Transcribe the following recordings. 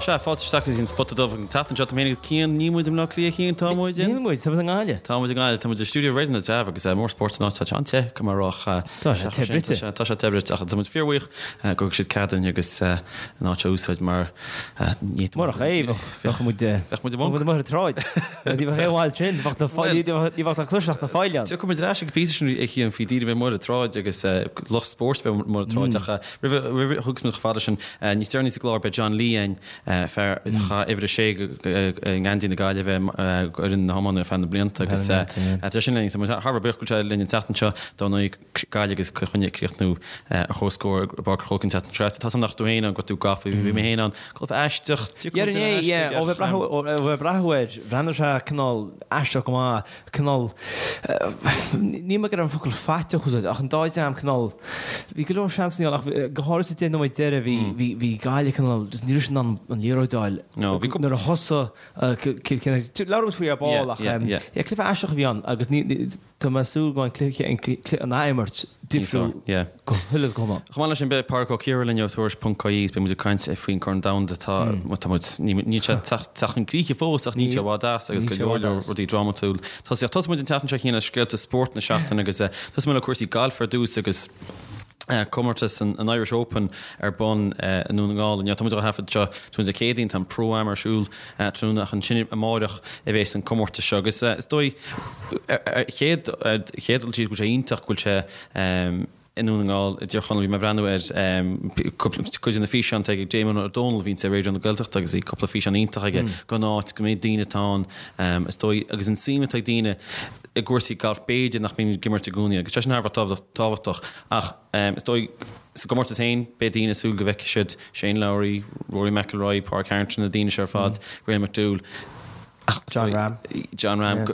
Sea, fáilte isteach go dtí an Spota Dubh an tseachtain seo. Tá mé féin agus Cian, níl muid i mBleá Cliath, Cian, tá muid in? Níl muid, tá muid i nGaillimh. Tá muid i nGaillimh, tá muid i stiúideo Raidió na dTreabh agus mór spóirt san áit, tá sé an-te, go maith rách. Tá sé te bruite. Tá sé te bruite ach tá muid fíorbhuíoch gur thug siad cead dúinn agus an áit a úsáid mar ní Murach é, bheadh muid bheadh muid amuigh ar an tsráid. Ní bheadh aon mhaith sin, bheadh na ní bheadh na cloiseadh na fáil ann. Tiocfaidh muid ar ais ag an bpíosa sin a Chian faoi daoine bheith amuigh ar an tsráid agus lucht spóirt bheith amuigh ar an tsráid ach Roimh a thiocfas muid chomh fada sin, níos deireanaí sa gclár beidh John Lee againn, fear a chaith uimhir a sé i ngeansaí na Gaillimhe d'fhoireann na hiomána ar feadh na blianta agus tá sin linn. Tá muid thar a bheith buíoch go bhfuil sé linn an tseachtain seo, dar ndóigh Gaillimh agus Cill Chainnigh ag críochnú ar comhscór i bPáirc an Chrócaigh an tseachtain seo caite. Tá 's agam nach raibh tú féin ann, go raibh tú gafa, bhí mé féin ann. Cluiche aisteach, Yeah, yeah, ó bheith ag breathnú air, bhreathnaigh sé cineál aisteach go maith. cineál, níl mé ag iarraidh an focal faiteach a úsáid, ach an dá dhream cineál, bhí go leor seansanna ann ach go háirid sa 10 nóiméad deiridh bhí, bhí, bhí Gaillimh cineál, just ní raibh siad in ann an liathróid a fháil. No, bhí Nuair a thosaigh Cill Chainnigh, labhróidh muid faoi ar ball ach yeah, cluiche aisteach a bhí ann agus ní, tá mé ag súil go mbeidh an cluiche, an cluiche, an athimirt difriúil Yeah. go huile is go hiomlán. Chomh maith leis sin, beidh Pádraig Ó Ciardha linn ó Tuairisc.ie is beidh muid ag caint faoin Corn Domhanda atá, tá muid, níl sé ag teacht chun críche fós ach níl sé i bhfad as agus go leor leor rudaí drámatúil. Tosaíocht, tosóidh muid an tseachtain seo Cian le scéalta spóirt na seachtaine agus tosóidh muid le cúrsaí gailf ar dtús agus comórtas an Irish Open ar bun i nDún na nGall inniu. Tá muid á thaifead seo tráthnóna Dé Céadaoin, tá an Pro-Am ar siúl tráthnóna ach ansin amáireach a bhéas an comórtas seo agus is dóigh ar chéad dul síos go bhfuil sé iontach go bhfuil sé i nDún na nGall i dTír Chonaill. Bhí mé ag breathnú ar cuid de na físeáin atá ag Damon Ó Dónaill a bhíonns ar Raidió na Gaeltachta agus bhí cúpla físeán iontach aige den áit go mbeidh daoine atá ann is dóigh agus an suim atá ag daoine i gcúrsaí gailf b'fhéidir nach mbíonn ag imirt i gcónaí agus sé sin thar a bheith tábhachtach ach is dóigh sa gcomórtas féin beidh daoine ag súil go bhfeicfidh siad Shane Lowry, Rory McIlroy, Pádraig Harrington na daoine seo ar fad, Graham McDowell. Jon Rahm. Jon Rahm.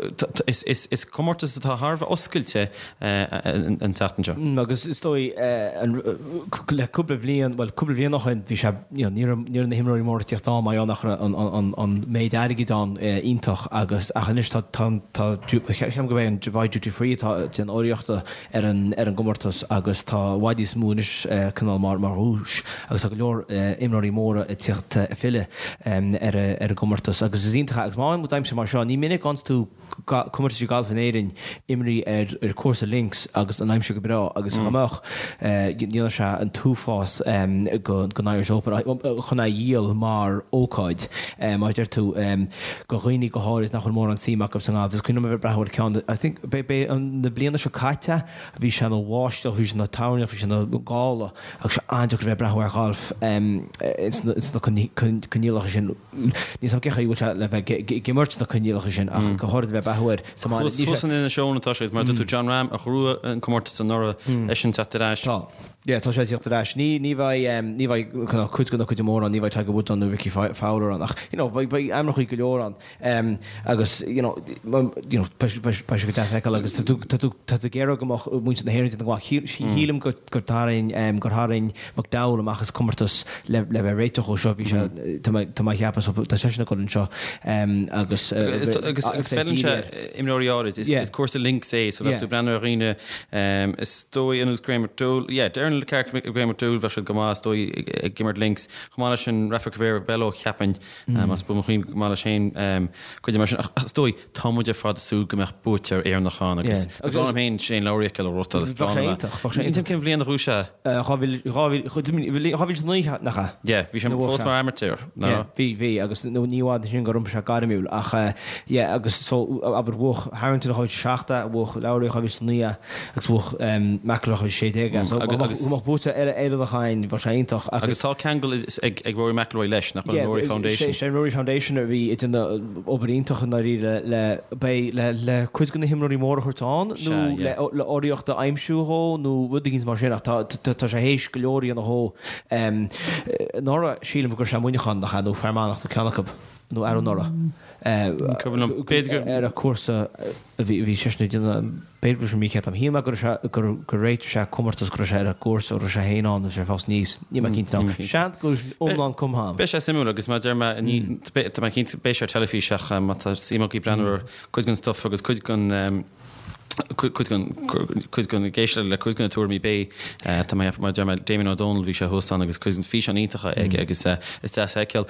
Is comórtas atá thar a bheith oscailte an tseachtain seo. Agus is dóigh le cúpla bliain, bhuel cúpla bliain ó shin bhí sé, you know, ní raibh ní raibh na himreoirí móra ag tíocht ann mar gheall nach raibh an an méid airgid ann iontach agus ach anois tá tá tá ceapaim gurb é an Dubai Duty Free atá ag déanamh urraíochta ar an ar an gcomórtas agus tá i bhfad níos mó anois cineál mar mar dhuais agus tá go leor imreoirí móra ag tíocht ag filleadh ar ar an gcomórtas agus is iontach é agus má fhaigheann muid aimsir mar seo ní minic a fhaigheanns tú comórtaisí gailf in Éirinn imrithe ar ar cúrsa links agus an aimsir go breá agus dá mbeadh dhéanfadh sé an t-uafás go don Irish Open chun é a dhíol mar ócáid mar a deir tú go dhaoine go háirid nach bhfuil mórán suim acu sa ngalf. Is cuimhin liom a bheith ag breathnú ar ceann, I think, b'é an na bliana seo caite, bhí sé ina bháisteach, bhí sé ina toirneach, bhí sé ina gála agus sé an-deacair a bheith ag breathnú ar ghalf ins na coinníollacha sin. Níl 's agam cén chaoi a bhfuil sé le bheith ag imirt sna coinníollacha sin ach go háirid a bheith ag breathnú air sa mbaile. Thuas in Inis Eoghain atá sé agus mar a dúirt tú Jon Rahm a ghnóthaigh an comórtas anuraidh eisean ag teacht ar ais. Tá. Yeah, tá sé ag tíocht ar ais. Ní, ní bheidh, ní bheidh kind of cuid de na cuid mór ann, ní bheidh Tiger Woods ann nó Rickie Fowler ann ach, you know, beidh, beidh ainmneacha go leor ann. Agus, you know, you know, beidh, beidh, beidh sé go deas a fheiceáil agus tá tú, tá tú, tá tú ag iarraidh go mbeadh muintir na hÉireann ag déanamh go maith. Shílim go, gur tharraing, gur tharraing McDowell amach as comórtas le, le bheith réiteach dhó seo, bhí sé, tá mé, tá mé a cheapadh, so tá seisean ag dul anseo agus, Agus, agus, agus feileann sé imreoirí áirid, is, is cúrsa links é, so bheadh tú ag breathnú ar dhaoine, is dóigh ar nós Graham McDowell, yeah, Darren Clarke, Graham McDowell bheadh siad go maith is dóigh ag imirt links, chomh maith leis sin Rafa Cabrera Bello cheapfainn, más buan mo chuimhne go maith leis féin cuid mar sin, ach is dóigh tá muid ar fad ag súil go mbeadh buaiteoir Éireannach ann agus ba bhreá liom féin Shane Lowry a fheiceáil ag rothaíl, is breá liom é. Níl 'fhios a'm cén bhliain a ghnóthaigh sé. 2009 nach ea? Yeah, bhí sé fós mar amateur, ná? Yeah, bhí, bhí, agus ní i bhfad ansin gur iompaigh sé gairmiúil ach yeah, agus so, abair, bhuaigh Harrington 2007, bhuaigh Lowry 2009 agus bhuaigh McIlroy 2016 é, so dá mbeadh buaiteoir eile Éireannach ann, bheadh sé iontach agus. Agus tá ceangal ag Rory McIlroy leis, nach bhfuil, an Rory Foundation? Sé an Rory Foundation a bhí ag déanamh obair iontach i ndáiríre le, beidh, le, le cuid de na himreoirí móra a thabhairt ann nó le, le urraíocht a aimsiú dhó nó rud éigin mar sin ach tá, tá, tá sé théis go leor a dhéanamh dhó. Anuraidh sílim go raibh sé i Muineachán nach ea nó Fear Manach nó ceann acu nó arú anuraidh. Cuimhin liom, b'fhéidir go. Ar an cúrsa a bhí, bhí seisean ag déanamh, b'fhéidir go raibh sé mícheart agam. Shíl mé go raibh sé, gur, gur réitigh sé comórtas go raibh sé ar an gcúrsa, go raibh sé féin ann agus sé fós níos, níl mé cinnte now. Seans go bhfuil iomlán cumtha agam. Beidh sé suimiúil agus mar a deir mé, ní, tá mé cinnte, beidh sé ar teilifís ach má tá suim agaibh breathnú ar cuid den stuff agus cuid den. Cuid den, ag éisteacht le cuid de na tuairimí beidh, tá mé, mar a deir mé, Damien O'Donnell, bhí sé thuas ann agus cuid den físeán iontacha aige agus is deas a fheiceáil.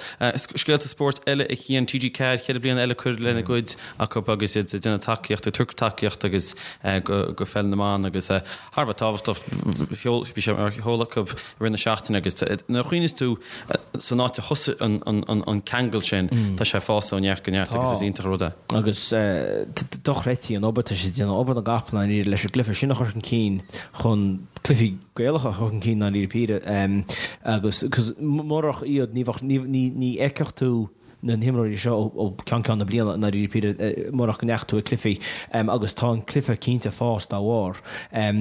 Scéalta spóirt eile a Chian, TG4, 4 bliana eile curtha lena gcuid acu agus iad ag déanamh tacaíocht, ag tabhairt tacaíocht agus go pheil na mban agus thar a bheith tábhachtach, bhí sé ar sheoladh acu i rith na seachtaine agus nuair a chuimhníos tú san áit a thosaigh an ceangal sin, tá sé ag fás ó neart go neart agus is iontach an rud é. Agus dochreidte an obair atá siad ag déanamh, obair na gcapall i ndáiríre leis an gcluiche sin a chur chun cinn chun cluichí Gaelacha a chur chun cinn i ndáiríre píre agus murach iad ní bheadh, ní fheicfeadh tú na himreoirí seo ó cheann ceann na bliana i ndáiríre píre murach go ndeachaigh tú ag cluichí agus tá an cluiche cinnte ag fás dá bharr. Ar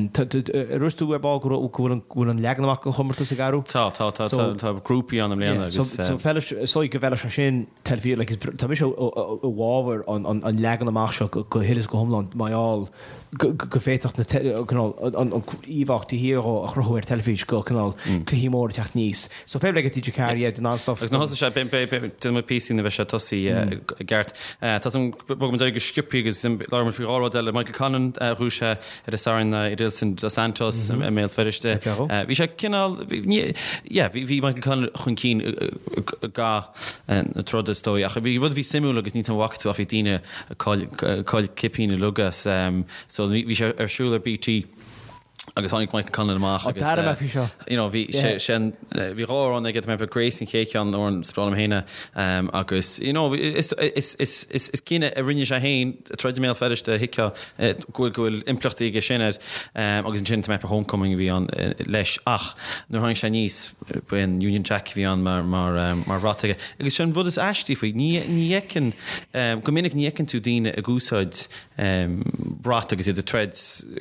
dhúirt tú ar ball go bhfuil an leagan amach den chomórtas ag athrú? Tá, tá, tá, tá grúpaí ann i mbliana agus. So is dóigh go bhfeilfeadh sé sin teilifís, like, tá mise i bhfabhar an leagan amach seo go huile is go hiomlán mar gheall go bhféadfadh na cineál an íomhá taobh thiar dhó a chruthú ar teilifís go cineál cluichí móra ag teacht aníos. So fair play go TG4, yeah, den an-stuff. Agus nuair a thosaigh sé, déanfaidh muid píosaí nuair a bheidh sé tosaithe i gceart. Tá san, bogfaidh muid ar aghaidh go sciobthaí agus labhróidh muid faoi dhá rud eile. Michael Conlan, bhuaigh sé ar an Satharn Edilson Dos Santos i mBéal Feirste. Bhí sé cineál, yeah, bhí Michael Conlan chun cinn i gcaitheamh na troda is dóigh. Ach bhí rud a bhí suimiúil agus níl 'fhios a'm an bhfaca tú ach bhí daoine ag caill cipíní uilig as. So bhí sé ar siúl ar BT. agus tháinig Michael Conlan amach agus D'airigh mé faoi seo. you know bhí sé sin bhí dhá amhrán aige tá mé Grace an chéad cheann amhrán is breá liom féin é agus you know is is is is is cinneadh a rinne sé féin troid i mBéal Feirste thuigfeá go bhfuil go bhfuil impleachtaí aige sin air agus ansin tá mé Homecoming a bhí ann leis ach nuair a tháinig sé aníos ba é an Union Jack a bhí ann mar mar mar bhrat aige agus sin rud is aistí faoi ní ní fheiceann go minic ní fheiceann tú daoine ag úsáid brat agus iad ag troid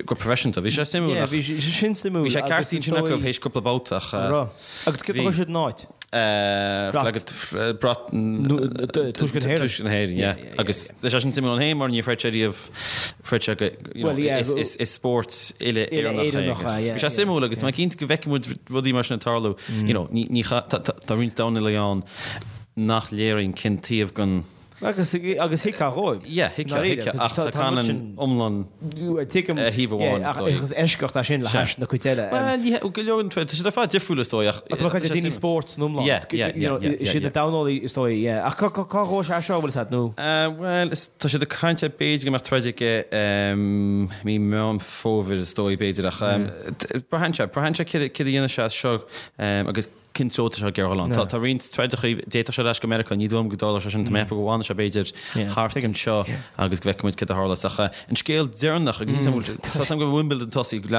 go proifisiúnta. Bhí sé suimiúil ach. Bhí sé sin suimiúil. Bhí sé ceart ansin acu théis cúpla babhta ach. An raibh? Agus céard a chuir siad ina áit? Brat. Brat. Tuaisceart na hÉireann. Tuaisceart na hÉireann, yeah. Agus tá sé sin suimiúil ann féin mar níor throid sé riamh, throid sé go, you know, is spórt uile-Éireannach é. Bhí sé suimiúil agus tá mé cinnte go bhfeicfidh muid rudaí mar sin ag tarlú. You know, ní, tá roinnt Domhnaigh ann nach léiríonn cén taobh den Agus agus thuigfeá dhóibh. Yeah, thuigfeá, thuigfeá, ach tá Conlan iomlán ar thaobh amháin, is dóigh. Is eisceacht é sin le hais na cuid eile. Bhuel, ní hea, go leor den troid, tá siad ar fad difriúil is dóigh, ach. Tá mé ag caint ar daoine spóirt san iomlán. Yeah, yeah, yeah, yeah, yeah. Siad na Domhnallaigh is dóigh, yeah. Ach cá ghabhfaidh sé seo, bhfuil fhios a'd, nó? Bhuel, tá siad ag caint ar b'fhéidir go mbeadh troid aige mí Meán Fómhair is dóigh, b'fhéidir, ach braitheann sé, braitheann sé céard a dhéanfaidh sé as seo agus cén treo atá sé ag iarraidh dul ann. Tá roinnt troideacha, d'fhéadfadh sé ar ais go Meiriceá, ní dóigh liom go dtarlódh sé sin, tá mé ag ceapadh go bhfanfaidh sé b'fhéidir thart anseo agus go bhfeicfidh muid céard a tharlós. Ach an scéal deireanach, agus níl 's agam, tá 's agam go bhfuil Wimbledon tosaithe,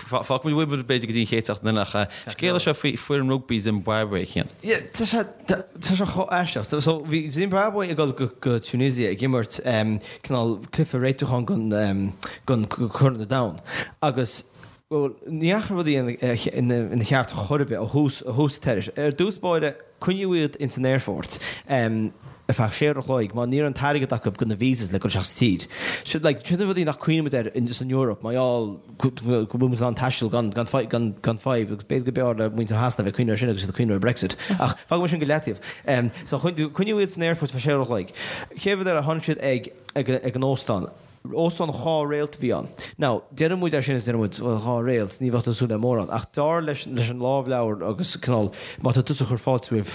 fágfaidh muid Wimbledon b'fhéidir go dtí an chéad seachtain eile, ach scéal é seo faoi foireann rugbaí Zimbabwe, a Chian. Tá sé, tá sé chomh aisteach. So bhí Zimbabwe ag dul go Tunisia ag imirt cineál cluiche réitiúcháin don Chorn an Domhain agus Bhuel, ní dheachaigh rudaí ina cheart chor ar bith ó thús tar éis. Ar dtús báire, coinníodh iad ins an aerfort ar feadh sé uair a chloig mar ní raibh an t-airgead acu do na visas le dul isteach sa tír. Sin like, sin na rudaí nach cuimhnímid air san Eoraip mar gheall go bhfuil muid in ann taisteal gan gan gan gan fadhb agus b'fhéidir go b'fhearr le muintir Shasana bheith ag cuimhneamh air sin agus iad ag cuimhneamh ar Brexit. Ach fágfaidh mé sin go leataobh. So coinníodh iad san aerfort ar feadh sé uair a chloig. Chéad rud eile, tháinig siad ag ag an óstán. Óstán dhá réalt a bhí ann. Now, deireann muid é sin is deireann muid, bhuel, dhá réalt, ní bheadh tú ag súil le mórán. Ach dar leis an lámhleabhar agus cineál, má tá tusa ag cur fáilte roimh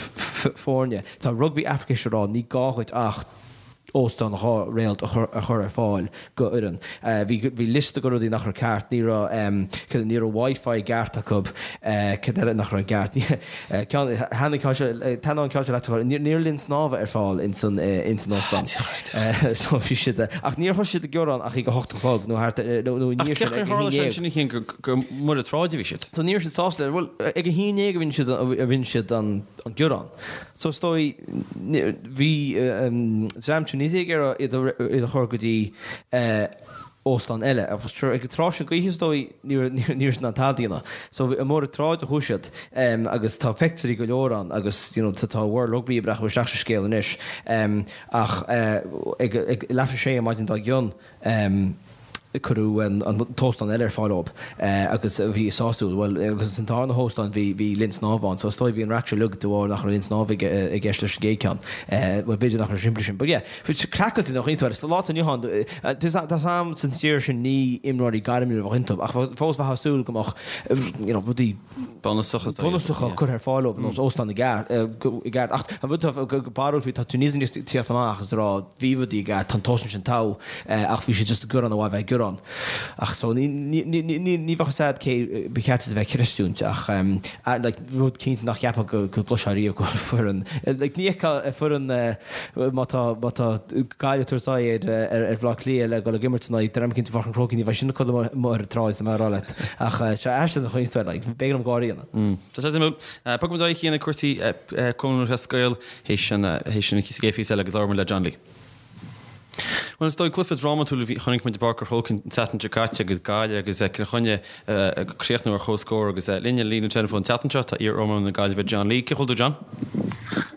foirne, tá Rugby Africa ag rá, ní gá dhuit ach óstán dhá réalt a chur ar fáil go fhoireann. Bhí bhí liosta de rudaí nach raibh ceart, ní raibh, ní raibh Wi-Fi i gceart acu, cad eile nach raibh i gceart? Ceann, thaitnigh ceann seo, taitneoidh an ceann seo leat, ní raibh linn snámha ar fáil ins an, ins an óstán. So bhí siad, ach níor thosaigh siad ag gearán ach ag a hocht a chlog nó thart, nó i ndiaidh sin, ag a haon déag. Ach cén chaoi ar tharla sé sin gur, gur amuigh ar an tsráid a bhí siad? So ní raibh siad sásta, bhuel, ag a haon déag a rinne siad, a rinne siad an, an gearán. So is dóigh, bhí dream Tunisia ag iarraidh iad a, iad a chur go dtí, óstán eile. Agus sure, ag an tráth sin d'oíche is dóigh, ní raibh siad in ann tada a dhéanamh. So amuigh ar an tsráid a chuaigh siad agus tá peictiúirí go leor ann agus you know tá World Rugby ag breathnú isteach sa scéal anois. Ach ag leathuair tar éis a sé an maidin dár gcionn. Cuireadh an t-óstán eile ar fáil dóibh agus a bhí sásúil. Bhuel, agus san darna hóstán bhí, bhí linn snámha ann. So is dóigh bhí an raic seo uilig de bharr nach raibh linn snámha i gceist leis an gcéad ceann. Bhuel, b'fhéidir nach raibh simplí sin. But yeah, craiceáilte nach iontu. Sa lá atá inniu ann, tá a fhios a'm san tír sin ní imreoirí gairmiúla a bheadh iontu ach fós bheifeá ag súil go mbeadh, you know, rudaí bunúsacha curtha ar fáil dóibh, ar nós óstán i gceart. Ach an rud atá barrúil faoi, tá Tunisia ag tíocht amach agus ag rá bhí rudaí i gceart, tá an t-óstán sin togha. Ach bhí siad just ag gearán ar mhaith bheith ag gearán. Ach so ní ní bheadh fhios a'd cé ba cheart iad a bheith ag creistiúint ach like rud cinnte nach gceapfá go go gcloisfeá riamh go bhfuil foireann like ní fheicfeá foireann má tá má tá Gaillimh ag tabhairt aghaidh ar ar Bhaile Átha Cliath le dul ag imirt in aghaidh dream eicínt i bPáirc an Chrócaigh ní bheidh sin ag codladh amuigh ar an tsráid tá mé a rá leat ach sé aisteach an chaoi like b'éigean dom gáire a dhéanamh. Tá sé suimiúil. Bogfaidh muid ar aghaidh chuig cúrsaí Cumann Lúthchleas Gael théis an théis an chéad phíosa eile agus labhróidh muid le John Lee. Bhuel, is dóigh, cluiche drámatúil a bhí, chonaic muid i bPáirc an Chrócaigh an tseachtain seo caite agus Gaillimh agus Cill Chainnigh ag críochnú ar comhscór agus linn ar an líne teileafóin an tseachtain seo tá iar-iománaí na Gaillimhe John Lee. Cén chaoi a bhfuil tú John?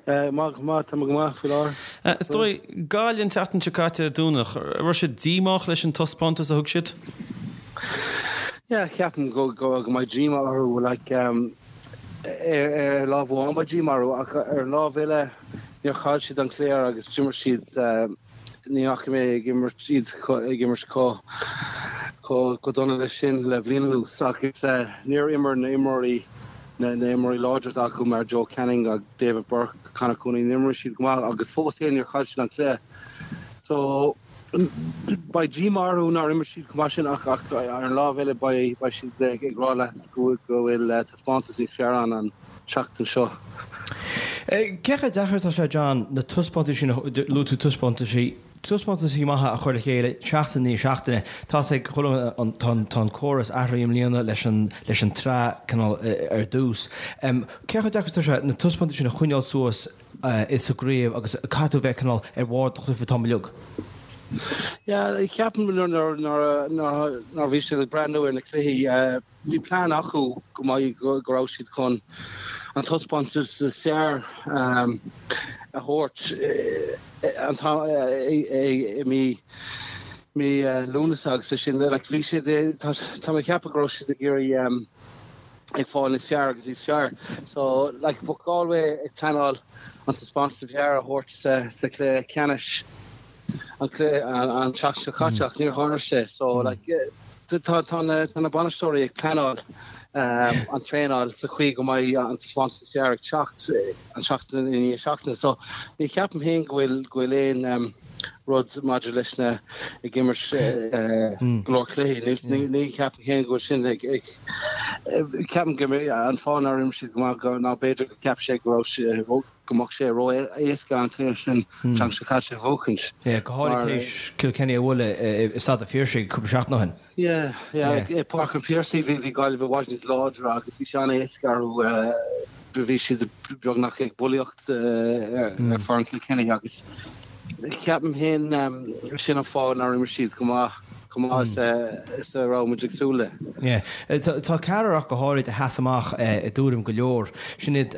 Maith go maith, tá mé go maith faoi láthair. Is dóigh, Gaillimh an tseachtain seo caite ar Domhnach, raibh siad díomách leis an taispeántas a thug siad? Yeah, ceapaim go mbeidh díomá orthu, like, ar lámh amháin beidh díomá orthu ach ar an lámh eile níor chaill siad an cluiche agus d'imir siad, ní fhaca mé ag imirt iad ag imirt chomh chomh dona leis sin le bliain anuas agus níor imir na imreoirí na imreoirí láidre atá acu mar Joe Canning agus David Burke, Conor Cooney, níor imir siad go maith agus fós féin níor chaill siad an cluiche. So beidh díomá orthu nár imir siad chomh maith sin ach ar an lámh eile beidh siad ag rá leat go bhfuil taispeántas níos fearr ann an tseachtain seo. Cé chomh deacair atá sé, John, na taispeántais sin, luaigh tú taispeántaisí, taispeántaisí maithe a chur le chéile seachtain i ndiaidh seachtaine. Tá a fhios ag chuile dhuine, tá an, tá an córas athraithe i mbliana leis an, leis an tsraith cineál ar dtús. Cé chomh deacair atá sé na taispeántais sin a choinneáil suas sa gcraobh agus caithfidh tú a bheith cineál ar bharr do chluiche an t-am uilig? Yeah, ceapaim nuair, nuair, nuair a bhí siad ag breathnú ar na cluichí, Bhí plean acu go mbeidh, go raibh siad chun an taispeántas is fearr a thabhairt an t-am i mí mí Lúnasa agus é sin like bhí siad tá tá mé ag ceapadh go raibh siad ag iarraidh ag fáil níos fearr agus níos fearr so like bheadh Galway ag pleanáil an taispeántas is fearr a thabhairt sa sa chluiche ceannais. an cluiche an tseachtain seo caite ach níor tharla sé so like tá tá na tá na bainisteoirí ag pleanáil an traenáil sa chaoi go mbeidh an taispeántas is fearr ag teacht an seachtain i ndiaidh seachtaine so ní cheapaim féin go bhfuil go bhfuil aon rud maidir leis na ag imirt go leor cluichí ní ní cheapaim féin go bhfuil sin ag ag ceapaim go an fáth nár imir siad go maith ná b'fhéidir go cheap sé go raibh sé go mbeadh sé ró-éasca an cluiche sin an tseachtain seo caite a bhuachaint. Yeah, go háirithe tar éis Kilkenny a bhualadh i Staid an Phiarsaigh cúpla seachtain ó shin. Yeah, yeah, i Páirc an Phiarsaigh bhí Gaillimh i bhfad níos láidre agus bhí sé an-éasca orthu, bhí siad beagnach ag bulaíocht ar foireann Kilkenny agus ceapaim féin sin an fáth nár imir siad go maith. chomh maith is a raibh muid ag súil le. Yeah. Tá ceathrar ach go háirid a sheas amach i dtuairim go leor. Sin iad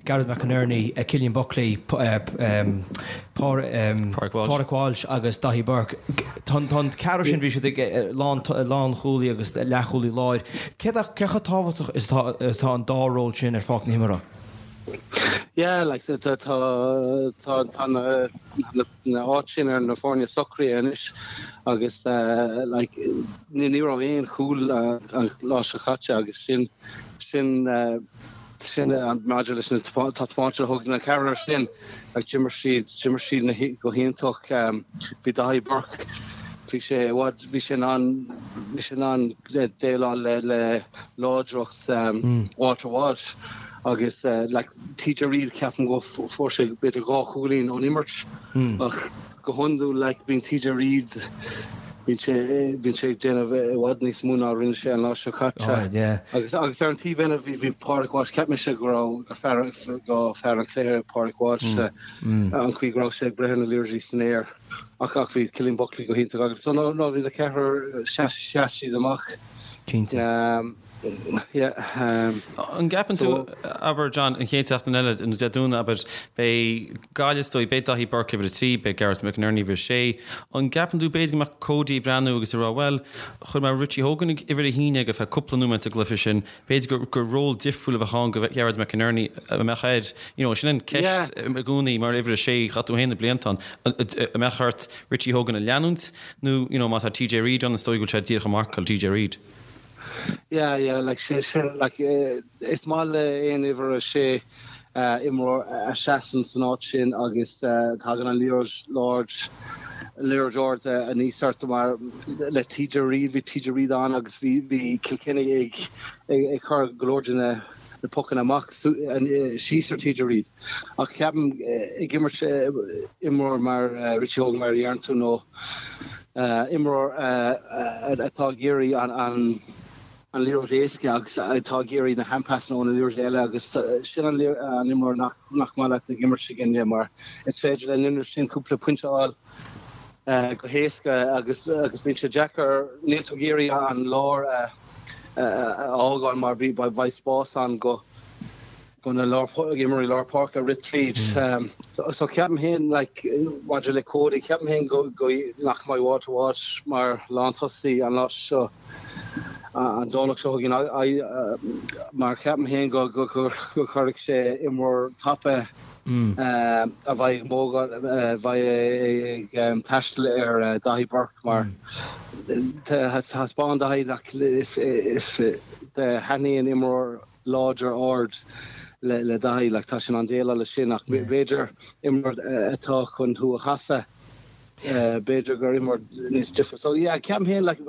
Gareth McInerney, Cillian Buckley, Pádraic Walsh agus Daithí Burke. Tá an ceathrar sin, bhí siad ag lánchúlaí agus leathchúlaí láir. Cé chomh tábhachtach is atá an dá ról sin ar pháirc na himeartha? Yeah, like tá tá tá na na áit sin ar na foirne socraithe anois agus like ní raibh aon chúl an lá seo caite agus sin sin sin maidir leis na taispeántas a thug na ceathrar sin like d'imir siad d'imir siad na go hiontach bhí Daithí Burke bhí sé i bhfad bhí sé in ann bhí sé in ann déileáil le le láidreacht Walter Walsh agus like TJ Reid ceapaim go fuair sé b'fhéidir 2 chúilín ón imirt ach go hiondúil like bíonn TJ Reid bíonn sé bíonn sé ag déanamh i bhfad níos mó ná rinne sé an lá seo caite agus agus ar an taobh eile bhí bhí Pádraig Walsh cheap mise go raibh gur fear go fear an chluiche Pádraig Walsh an chaoi go raibh sé ag breith ar na liathróidí san aer ach ach bhí Cillian Buckley go hiontach agus so no no bhí na ceathrar sheas sheas siad amach. Cinnte. Yeah. An gceapann tú, abair, John, an chéad seachtain eile, nó Dé Domhnaigh, abair, beidh Gaillimh is dóigh, beidh Daithí Burke uimhir 3, beidh Gareth McInerney uimhir 6. An gceapann tú b'fhéidir go mbeadh Cody ag breathnú agus ag rá, bhuel, chuir mé Richie Hogan ag uimhir 1 ar feadh cúpla nóiméad sa gcluiche sin, b'fhéidir gur gur ról difriúil a bheadh ann do Ghearóid McInerney a mbeadh air, you know, sin an ceist i gcónaí mar uimhir 6, chaith tú féin na blianta ann, an mbeadh ort Richie Hogan a leanúint nó, you know, má tá TJ Reid ann, is dóigh go bhfuil sé díreach ag marcáil TJ Reid. Yeah, yeah, like sé sin, like is maith le aon uimhir a sé imreoir a seasann san áit sin agus tagann an liathróid liathróid ard aníos ort mar le TJ Reid, bhí TJ Reid ann agus bhí bhí Kilkenny ag ag cur go leor de na na pocanna amach síos ar TJ Reid. Ach ceapaim ag imirt imreoir mar Richie Hogan mar a deireann tú nó imreoir atá ag iarraidh an liathróid éasca agus atá ag iarraidh na handpassanna ó na liathróidí eile agus sin an imreoir nach maith leat ag imirt i gcoinne mar is féidir le an imreoir sin cúpla pointe a fháil go héasca agus agus bíonn sé deacair, níl tú ag iarraidh an lár a fhágáil mar beidh spás ann go go na imreoirí lár páirce rith tríd. So ceapaim féin like maidir le Cody, ceapaim féin go go nach mbeidh Walter Walsh mar lántosaí an lá seo, an Domhnach seo chugainn mar ceapaim féin go go go gcuirfidh sé imreoir tapa a bheidh ag mógáil, a bheidh ag taisteal ar Daithí Burke mar thaispeáin Daithí nach is is thaitníonn imreoir láidir ard le Daithí, like tá sé in ann déileáil leis sin ach b'fhéidir imreoir atá chun thú a chasadh, b'fhéidir gur imreoir níos difriúil. So yeah, ceapaim féin like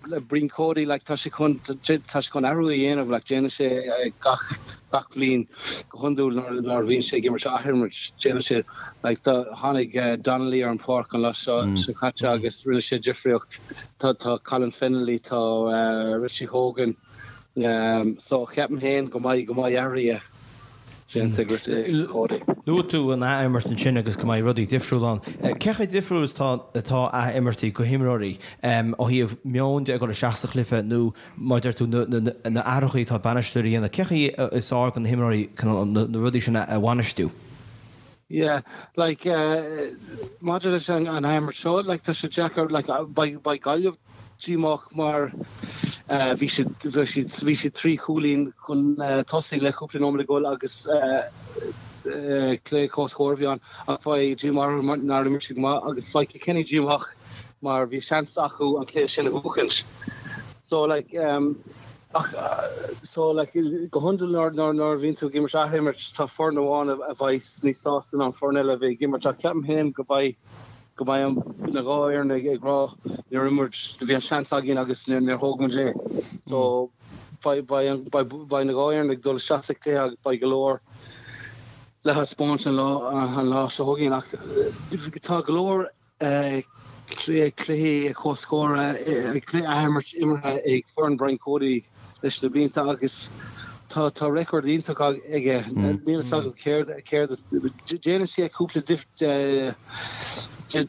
le Brian Cody like tá sé chun tá sé chun athrú a dhéanamh like déanann sé gach gach bliain go hiondúil nuair nuair a bhíonn sé ag imirt athimirt déanann sé like tá tháinig Donnelly ar an pháirc an lá seo seo caite agus rinne sé difríocht. Tá tá Colin Fennelly, tá Richie Hogan, So, ceapaim féin go mbeidh, go mbeidh athruithe déanta ag Cody. Luaigh tú an ath-imirt ansin agus go mbeidh rudaí difriúil ann. Cé chomh difriúil is atá atá ath-imirtí go himreoirí ó thaobh meoin de ag dul isteach sa chluiche nó mar a deir tú na na athruithe atá bainisteoirí a dhéanamh. Cé chaoi is fearr do na himreoirí na rudaí sin a bhainistiú? Yeah, like maidir leis an ath-imirt seo, like tá sé deacair, like beidh beidh Gaillimh díomách mar bhí siad bhí siad bhí siad 3 chúilín chun tosaigh le cúpla nóiméad le dhul agus cluiche comhscóir a bhí ann ach beidh díomá orthu mar nár imir siad go maith agus beidh Kilkenny díomách mar bhí seans acu an cluiche sin a bhuachaint. So like ach so like go hiondúil nuair nuair nuair a bhíonn tú ag imirt athimirt tá foireann amháin a bheidh níos sásta ná an foireann eile a bheidh ag imirt ach ceapaim féin go mbeidh go mbeidh na dhá fhoireann ag rá níor imir muid, bhí an seans againn agus níor thóg muid é. So beidh na dhá fhoireann ag dul isteach sa chluiche agus beidh go leor le thaispeáint an lá seo chugainn ach tá go leor cluichí comhscóir, cluiche athimirt imeartha ag foireann Brian Cody leis na blianta agus tá tá record iontach aige. Níl fhios agam céard céard déanann sé cúpla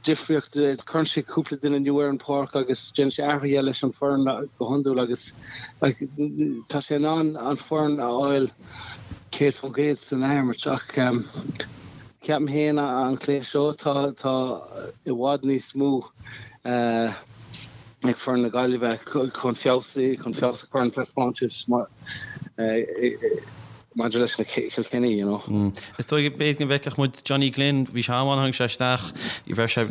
difríocht, cuireann sé cúpla duine nua ar an pháirc agus déanann sé athruithe leis an foireann go hiondúil agus tá sé in ann an foireann a fháil 100% san athimirt ach ceapaim féin an cluiche seo tá tá i bhfad níos mó ag foireann na Gaillimhe chun feabhas chun feabhas a chur ar an taispeántas maidir leis na Kilkenny, you know. Is dóigh b'fhéidir go bhfeicfeadh muid Johnny Glynn, bhí sé an-mhaith tháinig sé isteach, bheir sé